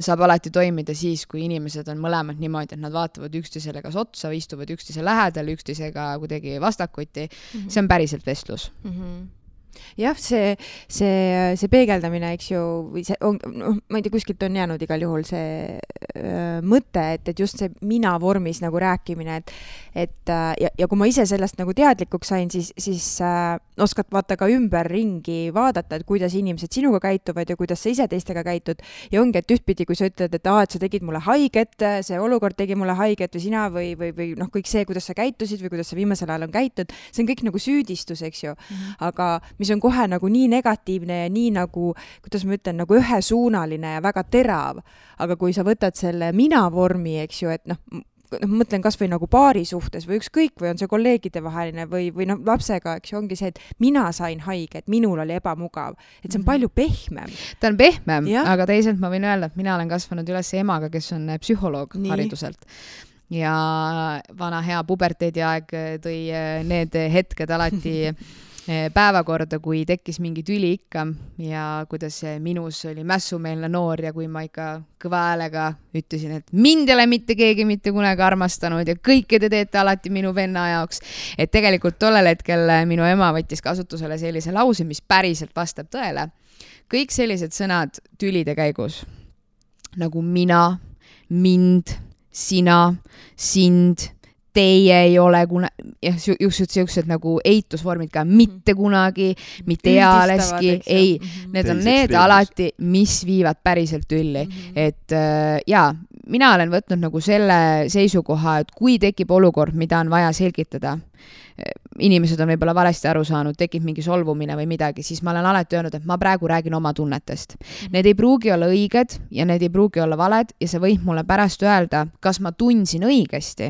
saab alati toimida siis, kui inimesed on mõlemad niimoodi, et nad vaatavad üksteisele kas otsa või istuvad üksteise lähedal, üksteisega kuidagi vastakuti. See on päriselt vestlus. Jah, see peegeldamine, eks ju, või see on, ma ei tea, kuskilt on jäänud igal juhul see mõte, et just see mina vormis nagu rääkimine, ja kui ma ise sellest nagu teadlikuks sain, siis oskad vaata ka ümberringi vaadata, et kuidas inimesed sinuga käituvad ja kuidas sa ise teistega käitud. Ja ongi, et ühtpidi, kui sa ütled, et sa tegid mulle haiget, see olukord tegi mulle haiget või sina või kõik see, kuidas sa käitusid või kuidas sa viimasel ajal on käitud, see on kõik nagu süüdistus, eks ju. Aga mis on kohe nagu nii negatiivne ja nii nagu, kuidas ma ütlen, nagu ühesuunaline ja väga terav. Aga kui sa võtad selle mina vormi, eks ju, et mõtlen kas või nagu paari suhtes või ükskõik või on see kolleegide vaheline või lapsega, eks ju, ongi see, et mina sain haige, et minul oli ebamugav. Et see on palju pehmem. Ta on pehmem, aga teisalt ma võin öelda, et mina olen kasvanud üles emaga, kes on psühholoog hariduselt. Ja vana hea puberteediaeg tõi need hetked alati päevakorda, kui tekkis mingi tüli ikka ja kuidas minus oli mässumeelne noor ja kui ma ikka kõva häälega ütlesin, et mind ei ole mitte keegi mitte kunagi armastanud ja kõike te teete alati minu venna jaoks. Et tegelikult tollel hetkel minu ema võttis kasutusele sellise lause, mis päriselt vastab tõele. Kõik sellised sõnad tülide käigus, nagu mina, mind, sina, sind, teie ei ole just nagu eitusvormid ka mitte kunagi, mitte ealeski, ei, need on need alati, mis viivad päriselt tülli. Et mina olen võtnud nagu selle seisukoha, et kui tekib olukord, mida on vaja selgitada, inimesed on võib-olla valesti aru saanud, tekib mingi solvumine või midagi, siis ma olen alati öelnud, et ma praegu räägin oma tunnetest. Need ei pruugi olla õiged ja need ei pruugi olla valed ja sa võid mulle pärast öelda, kas ma tundsin õigesti,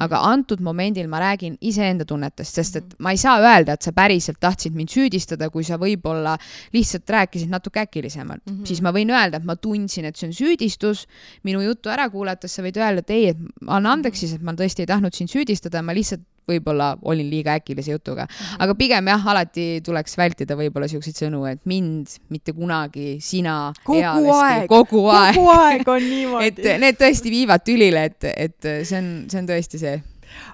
aga antud momendil ma räägin iseenda tunnetest, sest et ma ei saa öelda, et sa päriselt tahtsid mind süüdistada, kui sa võib-olla lihtsalt rääkisid natuke äkilisemalt. Siis ma võin öelda, et ma tundsin, et see on süüdistus, minu juttu ära kuulates sa võid öelda, et ei, et anna andeks siis, et ma tõesti ei tahtnud sind süüdistada, ma lihtsalt võib-olla olin liiga äkilise jutuga. Aga pigem jah, alati tuleks vältida võib-olla siukseid sõnu, et mind mitte kunagi, sina kogu aeg on niimoodi. Et need tõesti viivad tülile, et see on tõesti see.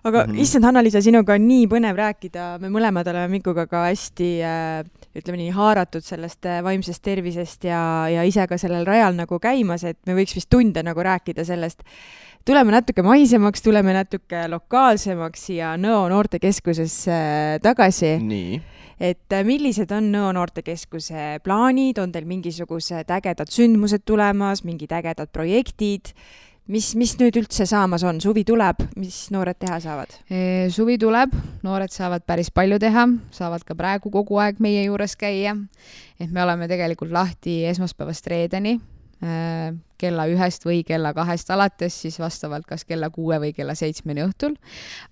Aga issand, Hanna-Liisa, sinuga on nii põnev rääkida, me mõlemad oleme Mikuga ka hästi, ütleme nii, haaratud sellest vaimsest tervisest ja ise ka sellel rajal nagu käimas, et me võiks vist tunde nagu rääkida sellest. Tuleme natuke maisemaks, tuleme natuke lokaalsemaks ja Nõo noortekeskusesse tagasi. Nii. Et millised on Nõo noortekeskuse plaanid, on teil mingisugused ägedad sündmused tulemas, mingid ägedad projektid? Mis nüüd üldse saamas on? Suvi tuleb, mis noored teha saavad? Suvi tuleb, noored saavad päris palju teha, saavad ka praegu kogu aeg meie juures käia. Et me oleme tegelikult lahti esmaspäevast reedeni, kella 1 või kella 2 alates, siis vastavalt kas kella 6 või kella 7 õhtul.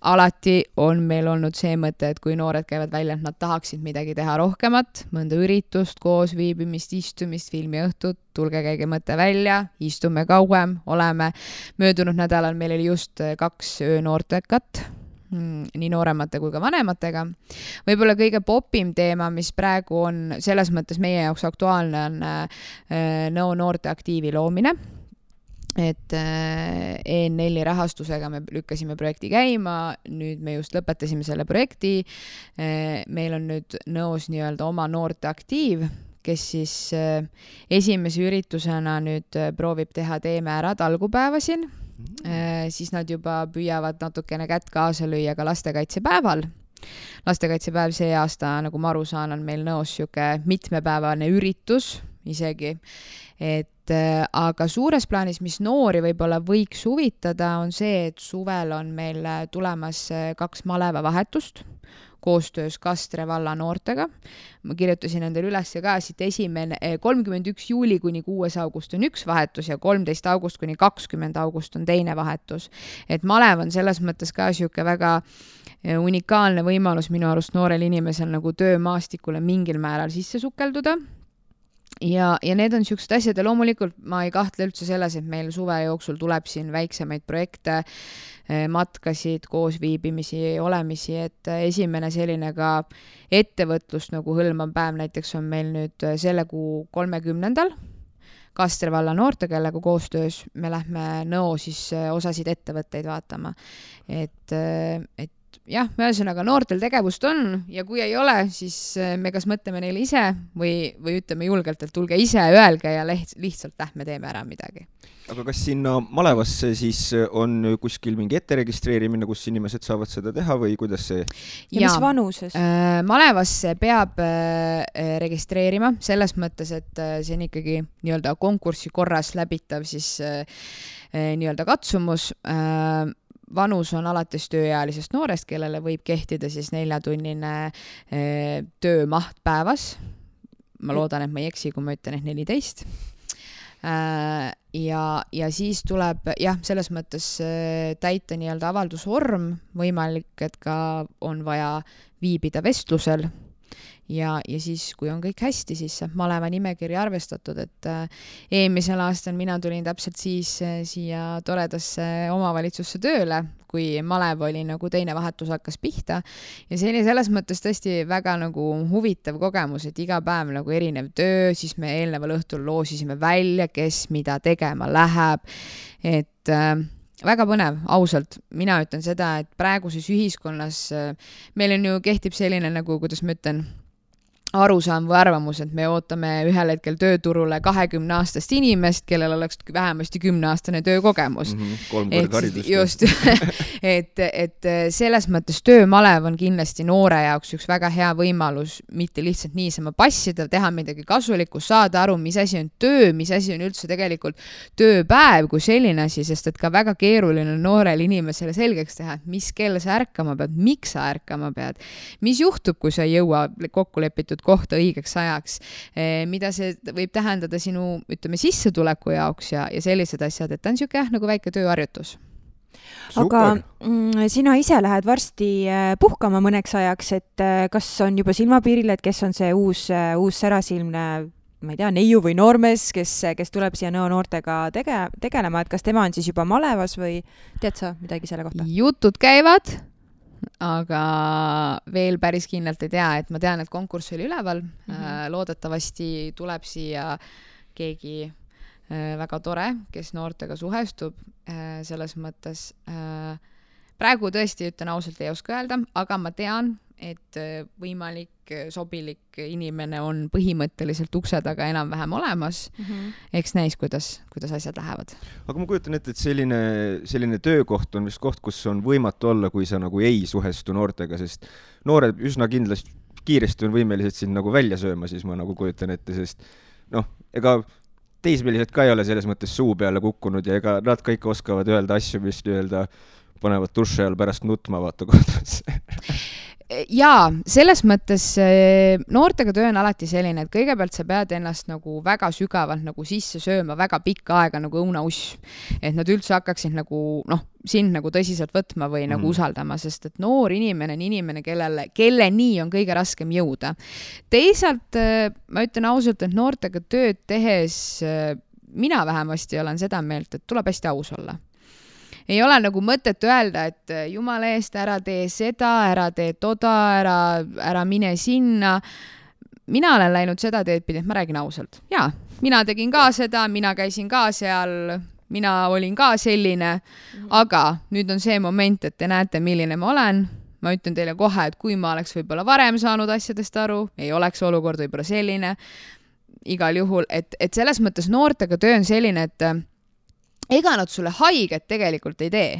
Alati on meil olnud see mõte, et kui noored käivad välja, et nad tahaksid midagi teha rohkemat, mõnda üritust, koos viibimist, istumist, filmiõhtut, tulge käige mõte välja, istume kauem, oleme. Möödunud nädalal meil oli just 2 öönoortekat, nii nooremate kui ka vanematega. Võib-olla kõige popim teema, mis praegu on selles mõttes meie jaoks aktuaalne, on Nõo noorteaktiivi loomine. Et EN4 rahastusega me lükkasime projekti käima, nüüd me just lõpetasime selle projekti. Meil on nüüd Nõos nii-öelda oma noorteaktiiv, kes siis esimese üritusena nüüd proovib teha Teeme ära talgupäeva siin. Siis nad juba püüavad natukene kätt kaasa lüüa ka lastekaitsepäeval. Lastekaitsepäev see aasta, nagu ma aru saan, on meil Nõos siuke mitmepäevane üritus isegi. Aga suures plaanis, mis noori võib-olla võiks huvitada, on see, et suvel on meil tulemas 2 malevavahetust koostöös Kastre valla noortega. Ma kirjutasin endale üles ka siit 31. juuli kuni 6. august on 1 vahetus ja 13. august kuni 20. august on teine vahetus. Et malev on selles mõttes ka siuke väga unikaalne võimalus minu arust noorel inimesel nagu töömaastikule mingil määral sisse sukelduda. Ja need on siuksed asjad ja loomulikult ma ei kahtle üldse selles, et meil suve jooksul tuleb siin väiksemaid projekte, matkasid, koosviibimisi, olemisi, et esimene selline ka ettevõtlust nagu hõlmav päev näiteks on meil nüüd selle kuu 30. Kastre valla noorte, kellega koostöös me lähme Nõo siis osasid ettevõtteid vaatama. Et jah, ühesõnaga noortel tegevust on ja kui ei ole, siis me kas mõtleme neile ise või ütleme julgelt, et tulge ise, öelge ja lihtsalt lähme teeme ära midagi. Aga kas sinna malevasse siis on kuskil mingi etteregistreerimine, kus inimesed saavad seda teha või kuidas see? Ja mis vanuses? Malevasse peab registreerima selles mõttes, et see on ikkagi nii-öelda konkursi korras läbitav siis nii-öelda katsumus. Vanus on alates tööealisest noorest, kellele võib kehtida siis 4-tunnine töömaht päevas. Ma loodan, et ma ei eksi, kui ma ütlen, et 14. Ja siis tuleb selles mõttes täita nii-öelda avaldusvorm, võimalik, et ka on vaja viibida vestlusel. Ja siis, kui on kõik hästi, siis saab maleva nimekiri arvestatud, et eelmisel aastal mina tulin täpselt siis siia toredasse omavalitsusse tööle, kui malev oli nagu teine vahetus hakkas pihta. Ja see oli selles mõttes tõesti väga nagu huvitav kogemus, et iga päev nagu erinev töö, siis me eelneval õhtul loosisime välja, kes mida tegema läheb, et väga põnev, ausalt. Mina ütlen seda, et praeguses ühiskonnas meil on ju kehtib selline nagu, kuidas ma ütlen, arusaam või arvamus, et me ootame ühel hetkel tööturule 20-aastast inimest, kellel oleks vähemasti 10-aastane töökogemus. 3 korda haridust. Just, et selles mõttes töömalev on kindlasti noore jaoks üks väga hea võimalus mitte lihtsalt niisama passida, teha midagi kasulikku, saada aru, mis asi on töö, mis asi on üldse tegelikult tööpäev kui selline asi, sest et ka väga keeruline noorel inimesele selgeks teha, et mis kell sa ärkama pead, miks sa ärkama pead, mis juhtub, kui sa ei jõua kokku lepitud kohta õigeks ajaks, mida see võib tähendada sinu, ütleme, sissetuleku jaoks ja sellised asjad, et ta on siuke nagu väike tööharjutus. Aga sina ise lähed varsti puhkama mõneks ajaks, et kas on juba silmapiiril, et kes on see uus särasilmne, ma ei tea, neiu või noormees, kes tuleb siia Nõo noortega tegelema, et kas tema on siis juba malevas või tead sa midagi selle kohta? Jutud käivad, aga veel päris kindlalt ei tea, et ma tean, et konkurss oli üleval, loodetavasti tuleb siia keegi väga tore, kes noortega suhestub, selles mõttes praegu tõesti ütlen ausalt ei oska öelda, aga ma tean, et võimalik sobilik inimene on põhimõtteliselt ukse taga enam-vähem olemas. Eks näis, kuidas asjad lähevad. Aga ma kujutan ette, et selline töökoht on vist koht, kus on võimatu olla, kui sa nagu ei suhestu noortega, sest noored üsna kindlasti kiiresti on võimelised sind nagu välja sööma, siis ma nagu kujutan ette, sest ega teismelised ka ei ole selles mõttes suu peale kukkunud ja ega nad kõik oskavad öelda asju, mis panevad duši all pärast nutma vaata kohtus. Jaa, selles mõttes noortega töö on alati selline, et kõigepealt sa pead ennast nagu väga sügavalt nagu sisse sööma väga pikka aega nagu õunauss, et nad üldse hakkaksid nagu, sind nagu tõsiselt võtma või nagu usaldama, sest et noor inimene on inimene, kelle nii on kõige raskem jõuda. Teisalt ma ütlen ausalt, et noortega tööd tehes mina vähemasti olen seda meelt, et tuleb hästi aus olla. Ei ole nagu mõtet öelda, et jumala eest ära tee seda, ära tee toda, ära mine sinna. Mina olen läinud seda teed pidi, et ma räägin ausalt. Jaa, mina tegin ka seda, mina käisin ka seal, mina olin ka selline, aga nüüd on see moment, et te näete, milline ma olen. Ma ütlen teile kohe, et kui ma oleks võib-olla varem saanud asjadest aru, ei oleks olukord võib-olla selline. Igal juhul, et selles mõttes noortega töö on selline, et ega nad sulle haiget tegelikult ei tee.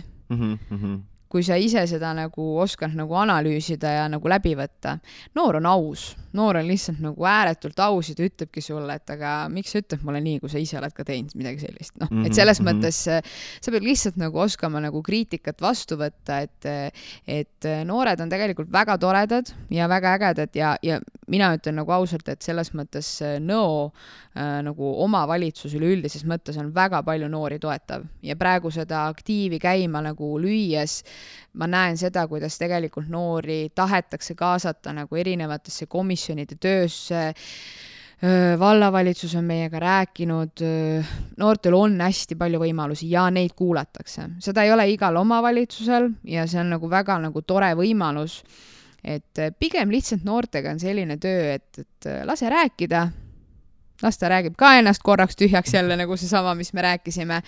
Kui sa ise seda nagu oskad nagu analüüsida ja nagu läbi võtta. Noor on aus. Noor on lihtsalt nagu ääretult aus ja ta ütlebki sulle, et aga miks sa ütled mulle nii, kui sa ise oled ka teinud midagi sellist. Et selles mõttes sa pead lihtsalt nagu oskama nagu kriitikat vastu võtta, et noored on tegelikult väga toredad ja väga ägedad ja mina ütlen nagu ausalt, et selles mõttes nagu omavalitsus üleüldises mõttes on väga palju noori toetav ja praegu seda aktiivi käima nagu lüües ma näen seda, kuidas tegelikult noori tahetakse kaasata nagu erinevatesse komisjonide töösse. Vallavalitsus on meiega rääkinud, noortel on hästi palju võimalusi ja neid kuulatakse. Seda ei ole igal omavalitsusel ja see on nagu väga nagu tore võimalus, et pigem lihtsalt noortega on selline töö, et lase rääkida. Las ta räägib ka ennast korraks tühjaks jälle nagu see sama, mis me rääkisime.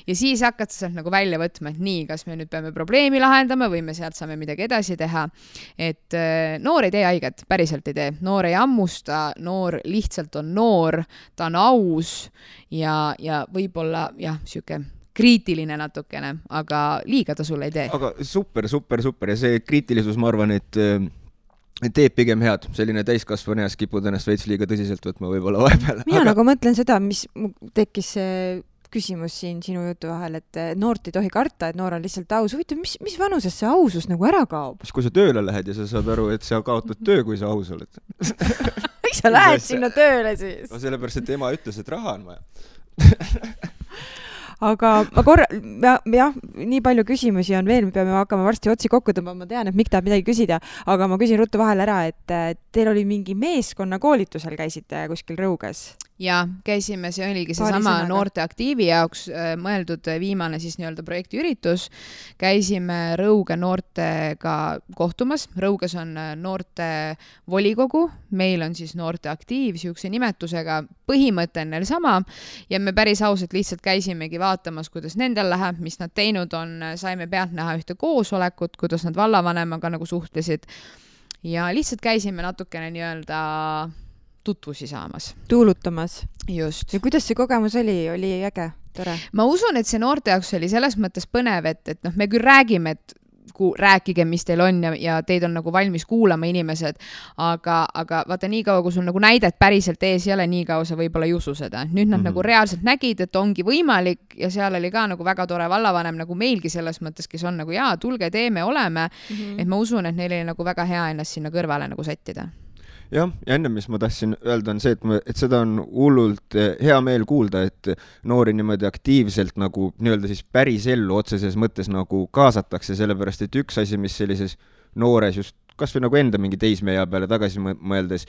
Ja siis hakkad sa sealt nagu välja võtma, et nii, kas me nüüd peame probleemi lahendama või me sealt saame midagi edasi teha. Et noor ei tee haiget, päriselt ei tee. Noor ei ammusta, noor lihtsalt on noor, ta on aus ja võib-olla siuke kriitiline natukene, aga liiga ta sulle ei tee. Aga super ja see kriitilisus, ma arvan, et teeb pigem head. Selline täiskasvaneas kipud ennast veits liiga tõsiselt võtma võib-olla vahepeal. Mina nagu mõtlen seda, mis tekkis küsimus siin sinu jutu vahel, et noort ei tohi karta, et noor on lihtsalt aus. Huvitav, mis vanuses see ausus nagu ära kaob? Kui sa tööle lähed ja sa saad aru, et sa kaotad töö, kui sa aus oled. Miks sa lähed sinna tööle siis? No sellepärast, et ema ütles, et raha on vaja. Aga ma nii palju küsimusi on veel, me peame hakkama varsti otsi kokku tõmbama, ma tean, et Mikk tahab midagi küsida, aga ma küsin ruttu vahel ära, et teil oli mingi meeskonna koolitusel käisite kuskil Rõuges? Ja käisime, see oligi seesama noorte aktiivi jaoks mõeldud viimane siis nii-öelda projektiüritus. Käisime Rõuge noortega kohtumas. Rõuges on noorte volikogu, meil on siis noorte aktiiv siukse nimetusega, põhimõte on neil sama ja me päris ausalt lihtsalt käisimegi vaatamas, kuidas nendel läheb, mis nad teinud on, saime pealt näha ühte koosolekut, kuidas nad vallavanemaga nagu suhtlesid ja lihtsalt käisime natukene nii-öelda tutvusi saamas. Tuulutamas. Just. Ja kuidas see kogemus oli? Oli äge? Tore? Ma usun, et see noorte jaoks oli selles mõttes põnev, et me küll räägime, et rääkige, mis teil on ja teid on nagu valmis kuulama inimesed, aga vaata nii kaua, kui sul nagu näidet päriselt ees ei ole, nii kaua sa võib-olla ei usu seda. Nüüd nad nagu reaalselt nägid, et ongi võimalik ja seal oli ka nagu väga tore vallavanem nagu meilgi selles mõttes, kes on nagu tulge, teeme, oleme, et ma usun, et neil oli nagu väga hea ennast sinna kõrvale nagu sättida. Ja enne, mis ma tahtsin öelda, on see, et seda on hullult hea meel kuulda, et noori niimoodi aktiivselt nagu nii-öelda siis päris ellu otseses mõttes nagu kaasatakse, sellepärast, et üks asi, mis sellises noores just kas või nagu enda mingi teismeea peale tagasi mõeldes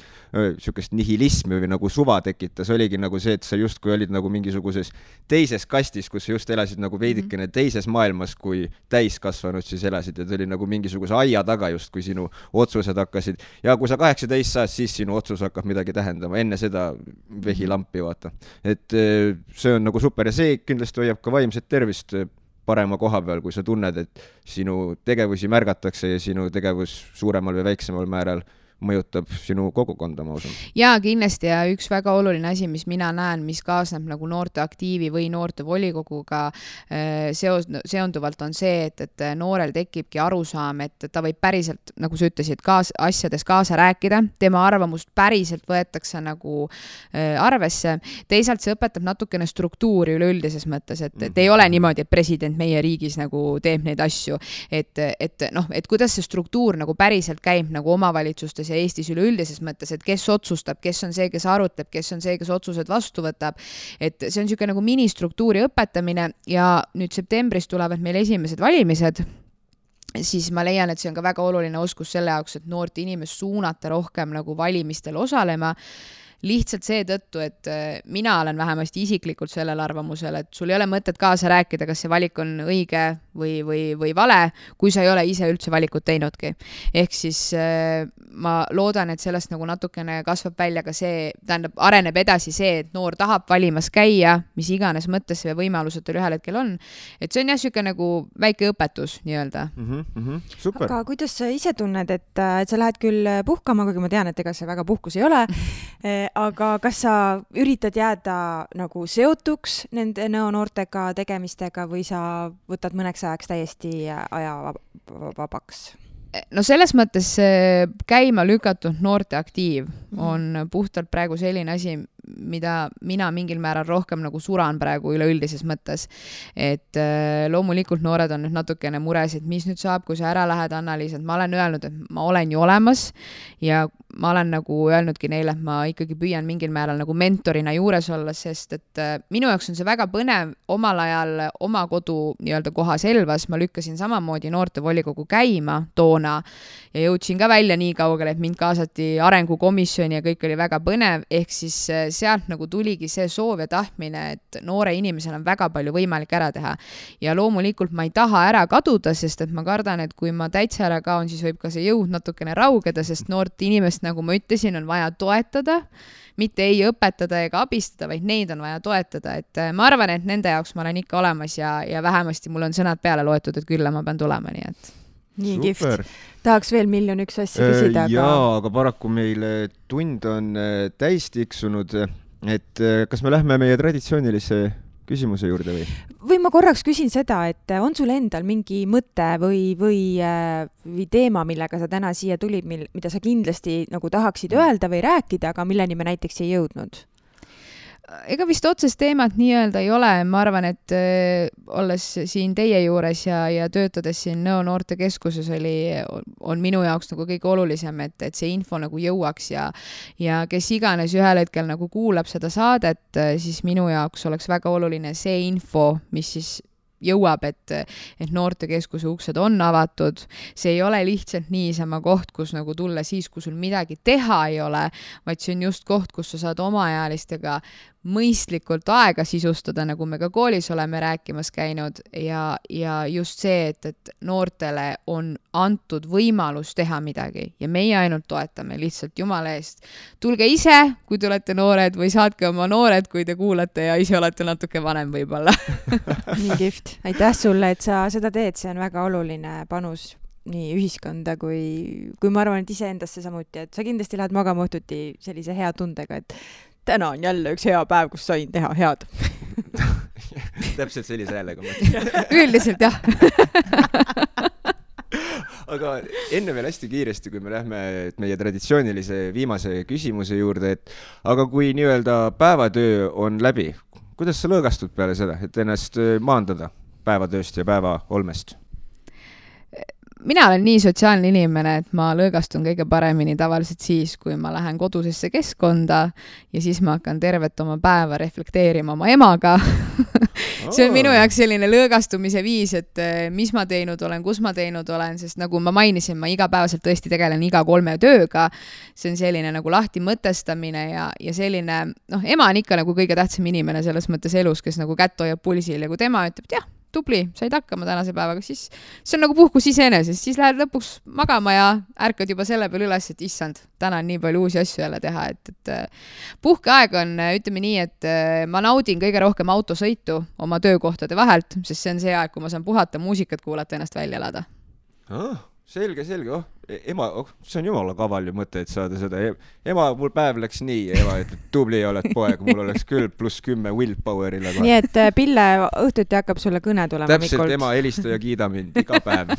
sükest nihilismi või nagu suva tekitas, oligi nagu see, et sa justkui olid nagu mingisuguses teises kastis, kus sa just elasid nagu veidikene teises maailmas, kui täiskasvanud siis elasid, et oli nagu mingisuguse aia taga just, kui sinu otsused hakkasid. Ja kui sa 18 saad, siis sinu otsus hakkab midagi tähendama. Enne seda vehilampi, vaata. Et see on nagu super ja see kindlasti hoiab ka vaimset tervist parema koha peal, kui sa tunned, et sinu tegevusi märgatakse ja sinu tegevus suuremal või väiksemal määral mõjutab sinu kogukonda, ma usun. Jaa, kindlasti ja üks väga oluline asi, mis mina näen, mis kaasneb nagu noorte aktiivi või noorte volikoguga seonduvalt on see, et noorel tekibki arusaam, et ta võib päriselt, nagu sa ütlesid, asjades kaasa rääkida, tema arvamust päriselt võetakse nagu arvesse. Teisalt see õpetab natukene struktuuri üleüldises mõttes, et ei ole niimoodi, et president meie riigis nagu teeb neid asju, et kuidas see struktuur nagu päriselt käib nagu omavalitsustes ja Eestis üleüldises mõttes, et kes otsustab, kes on see, kes arutleb, kes on see, kes otsused vastu võtab. Et see on niisugune nagu ministruktuuri õpetamine ja nüüd septembris tulevad meil esimesed valimised, siis ma leian, et see on ka väga oluline oskus selle jaoks, et noort inimest suunata rohkem nagu valimistel osalema. Lihtsalt seetõttu, et mina olen vähemasti isiklikult sellel arvamusel, et sul ei ole mõtet kaasa rääkida, kas see valik on õige või vale, kui sa ei ole ise üldse valikut teinudki. Ehk siis ma loodan, et sellest nagu natukene kasvab välja ka see, tähendab, areneb edasi see, et noor tahab valimas käia, mis iganes mõttes või võimalused ühel hetkel on. Et see on jah siuke nagu väike õpetus nii-öelda. Super. Aga kuidas sa ise tunned, et sa lähed küll puhkama, kuigi ma tean, et ega see väga puhkus ei ole, aga kas sa üritad jääda nagu seotuks nende noortega tegemistega või sa võtad mõneks ajaks täiesti aja vabaks? No selles mõttes käima lükatud noorte aktiiv on puhtalt praegu selline asi, mida mina mingil määral rohkem nagu suran praegu üleüldises mõttes. Et loomulikult noored on nüüd natukene mures, et mis nüüd saab, kui sa ära lähed, Anna-Liis, et ma olen öelnud, et ma olen ju olemas ja ma olen nagu öelnudki neile, et ma ikkagi püüan mingil määral nagu mentorina juures olla, sest et minu jaoks on see väga põnev. Omal ajal oma kodu nii-öelda kohas Elvas ma lükkasin samamoodi noorte volikogu käima toona ja jõudsin ka välja nii kaugele, et mind kaasati arengukomisjoni ja kõik oli väga põnev, ehk siis sealt nagu tuligi see soov ja tahtmine, et noore inimesel on väga palju võimalik ära teha. Ja loomulikult ma ei taha ära kaduda, sest et ma kardan, et kui ma täitsa ära kaon, siis võib ka see jõud natukene raugeda, sest noort inimest, nagu ma ütlesin, on vaja toetada, mitte ei õpetada ega abistada, vaid neid on vaja toetada. Et ma arvan, et nende jaoks ma olen ikka olemas ja vähemasti mul on sõnad peale loetud, et küll ma pean tulema, nii et... Nii kihvt. Tahaks veel 1,000,001 asja küsida. Jaa, aga paraku meil tund on täis tiksunud, et kas me lähme meie traditsioonilise küsimuse juurde või? Või ma korraks küsin seda, et on sul endal mingi mõte või teema, millega sa täna siia tulid, mida sa kindlasti nagu tahaksid öelda või rääkida, aga milleni me näiteks ei jõudnud? Ega vist otsest teemat nii-öelda ei ole. Ma arvan, et olles siin teie juures ja töötades siin Nõo noortekeskuses on minu jaoks nagu kõige olulisem, et see info nagu jõuaks ja kes iganes ühel hetkel nagu kuulab seda saadet, siis minu jaoks oleks väga oluline see info, mis siis jõuab, et noortekeskuse uksed on avatud. See ei ole lihtsalt niisama koht, kus nagu tulla siis, kui sul midagi teha ei ole, vaid see on just koht, kus sa saad omaealistega mõistlikult aega sisustada, nagu me ka koolis oleme rääkimas käinud ja just see, et noortele on antud võimalus teha midagi ja meie ainult toetame lihtsalt Jumala eest. Tulge ise, kui te olete noored või saatke oma noored, kui te kuulate ja ise olete natuke vanem võib-olla. Nii kihvt. Aitäh sulle, et sa seda teed, see on väga oluline panus nii ühiskonda kui ma arvan, et iseendasse samuti, et sa kindlasti lähed magama õhtuti sellise hea tundega, et täna on jälle üks hea päev, kus sain teha head. Täpselt sellise häälega. Üldiselt jah. Aga enne veel hästi kiiresti, kui me lähme meie traditsioonilise viimase küsimuse juurde, et aga kui nii-öelda päevatöö on läbi, kuidas sa lõõgastud peale seda, et ennast maandada päevatööst ja päeva olmest? mina olen nii sotsiaalne inimene, et ma lõõgastun kõige paremini tavaliselt siis, kui ma lähen kodusesse keskkonda ja siis ma hakkan tervet oma päeva reflekteerima oma emaga. See on minu jaoks selline lõõgastumise viis, et mis ma teinud olen, kus ma teinud olen, sest nagu ma mainisin, ma igapäevaselt tõesti tegelen iga 3 tööga. See on selline nagu lahti mõtestamine ja selline, ema on ikka nagu kõige tähtsam inimene selles mõttes elus, kes nagu kätt hoiab pulsil ja kui tema ütleb, et jah, tubli, said hakkama tänase päevaga, siis see on nagu puhkus iseenesest, siis lähed lõpuks magama ja ärkad juba selle peale üles, et issand, täna on nii palju uusi asju jälle teha, et puhkeaeg on, ütleme nii, et ma naudin kõige rohkem autosõitu oma töökohtade vahelt, sest see on see aeg, kui ma saan puhata, muusikat kuulata, ennast välja elada. Selge, ema, see on jumala kaval ju mõte, et saada seda. Ema, mul päev läks nii, ema, et tubli oled poeg, mul oleks küll +10 willpower'ile. Nii, et Pille õhtuti hakkab sulle kõne tulema. Täpselt, ema helista ja kiida mind iga päev.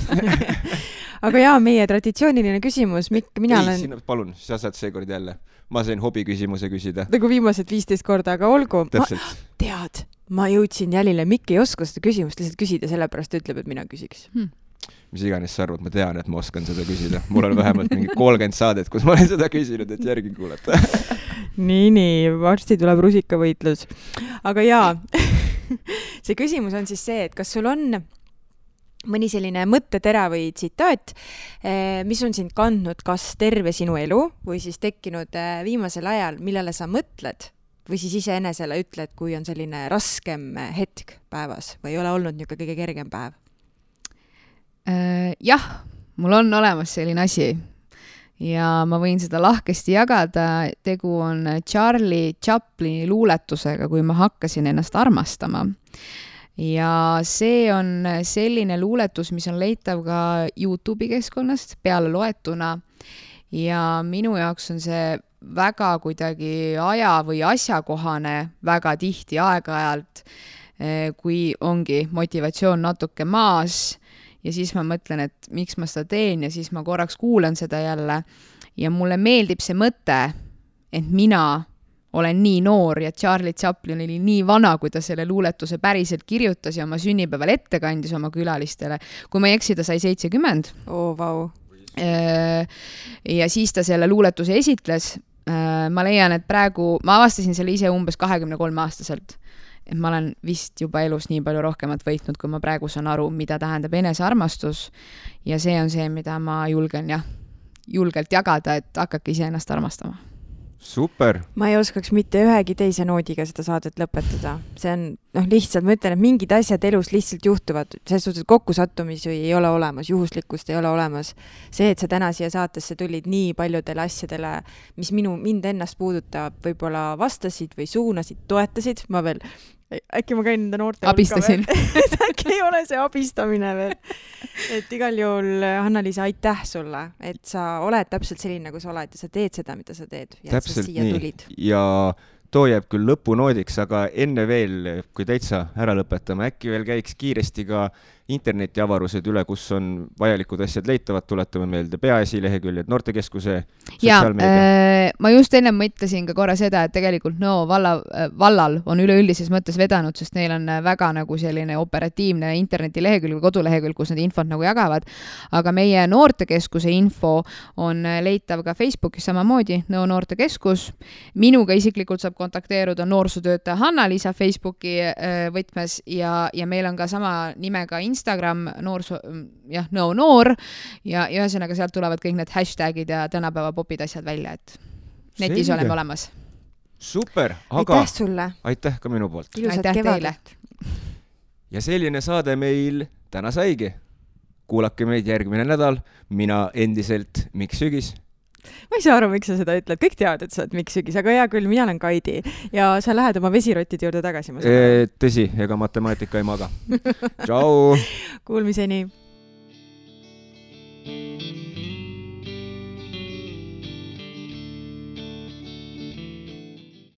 Aga jaa, meie traditsiooniline küsimus, Mikk, mina olen... Palun, sa saad seekord jälle. Ma sain hobi küsimuse küsida. Nagu viimased 15 korda, aga olgu. Täpselt. Ma jõudsin jälile, Mikk ei oska seda küsimust lihtsalt küsida, sellepärast ütleb, et mina küsiks. Mis iganes sa arvad, ma tean, et ma oskan seda küsida. Mul on vähemalt mingi 30 saadet, kus ma olen seda küsinud, et järgi kuulata. Nii, varsti tuleb rusikavõitlus. Aga jaa, see küsimus on siis see, et kas sul on mõni selline mõttetera või tsitaat, mis on sind kandnud kas terve sinu elu või siis tekkinud viimasel ajal, millele sa mõtled või siis iseenesele ütled, kui on selline raskem hetk päevas või ei ole olnud niisugune kõige kergem päev? Jah, mul on olemas selline asi ja ma võin seda lahkesti jagada. Tegu on Charlie Chaplini luuletusega, kui ma hakkasin ennast armastama. Ja see on selline luuletus, mis on leitav ka YouTube'i keskkonnast peale loetuna ja minu jaoks on see väga kuidagi aja või asjakohane väga tihti aeg-ajalt, kui ongi motivatsioon natuke maas ja siis ma mõtlen, et miks ma seda teen ja siis ma korraks kuulan seda jälle ja mulle meeldib see mõte, et mina olen nii noor ja Charlie Chaplin oli nii vana, kui ta selle luuletuse päriselt kirjutas ja oma sünnipäeval ette kandis oma külalistele. Kui ma ei eksi, ta sai 70. Vau. Ja siis ta selle luuletuse esitles. Ma leian, et praegu, ma avastasin selle ise umbes 23-aastaselt. Et ma olen vist juba elus nii palju rohkemat võitnud, kui ma praegu saan aru, mida tähendab enesearmastus ja see on see, mida ma julgelt jagada, et hakake ise ennast armastama. Super! Ma ei oskaks mitte ühegi teise noodiga seda saadet lõpetada. See on, lihtsalt, ma ütlen, et mingid asjad elus lihtsalt juhtuvad. Selles suhtes kokkusattumisi ei ole olemas, juhuslikkust ei ole olemas. See, et sa täna siia saatesse tulid nii paljudele asjadele, mis mind ennast puudutab, võib-olla vastasid või suunasid, toetasid. Ma veel, äkki ma käin nende noorte abistasin. Äkki ei ole see abistamine veel. Et igal juhul, Hanna-Liisa, aitäh sulle, et sa oled täpselt selline, nagu sa oled ja sa teed seda, mida sa teed. Ja täpselt nii. Ja too jääb küll lõpunoodiks, aga enne veel, kui täitsa ära lõpetame, äkki veel käiks kiiresti ka internetiavarused üle, kus on vajalikud asjad leitavad, tuletame meelde peaasi leheküljed, noortekeskuse sotsiaalmeedia. Ma just enne mõtlesin ka korra seda, et tegelikult vallal on üleüldises mõttes vedanud, sest neil on väga nagu selline operatiivne internetilehekülg või kodulehekülg, kus need infot nagu jagavad. Aga meie noortekeskuse info on leitav ka Facebookis samamoodi, noortekeskus. Minuga isiklikult saab kontakteeruda noorsootöötaja Hanna-Liisa Facebooki võtmes ja meil on ka sama nimega Instagram noor ja ühesõnaga sealt tulevad kõik need hashtagid ja tänapäeva popid asjad välja, et netis oleme olemas. Super, aga aitäh sulle. Aitäh ka minu poolt. Ilusat kevadet. Ja selline saade meil täna saigi. Kuulake meid järgmine nädal. Mina endiselt Mikk Sügis. Ma ei saa aru, miks sa seda ütled. Kõik teavad, et sa oled Mikk Sügis, aga hea küll, mina olen Kaidi ja sa lähed oma vesirottide juurde tagasi. Tõsi, ega matemaatika ei maga. Tšau! Kuulmiseni!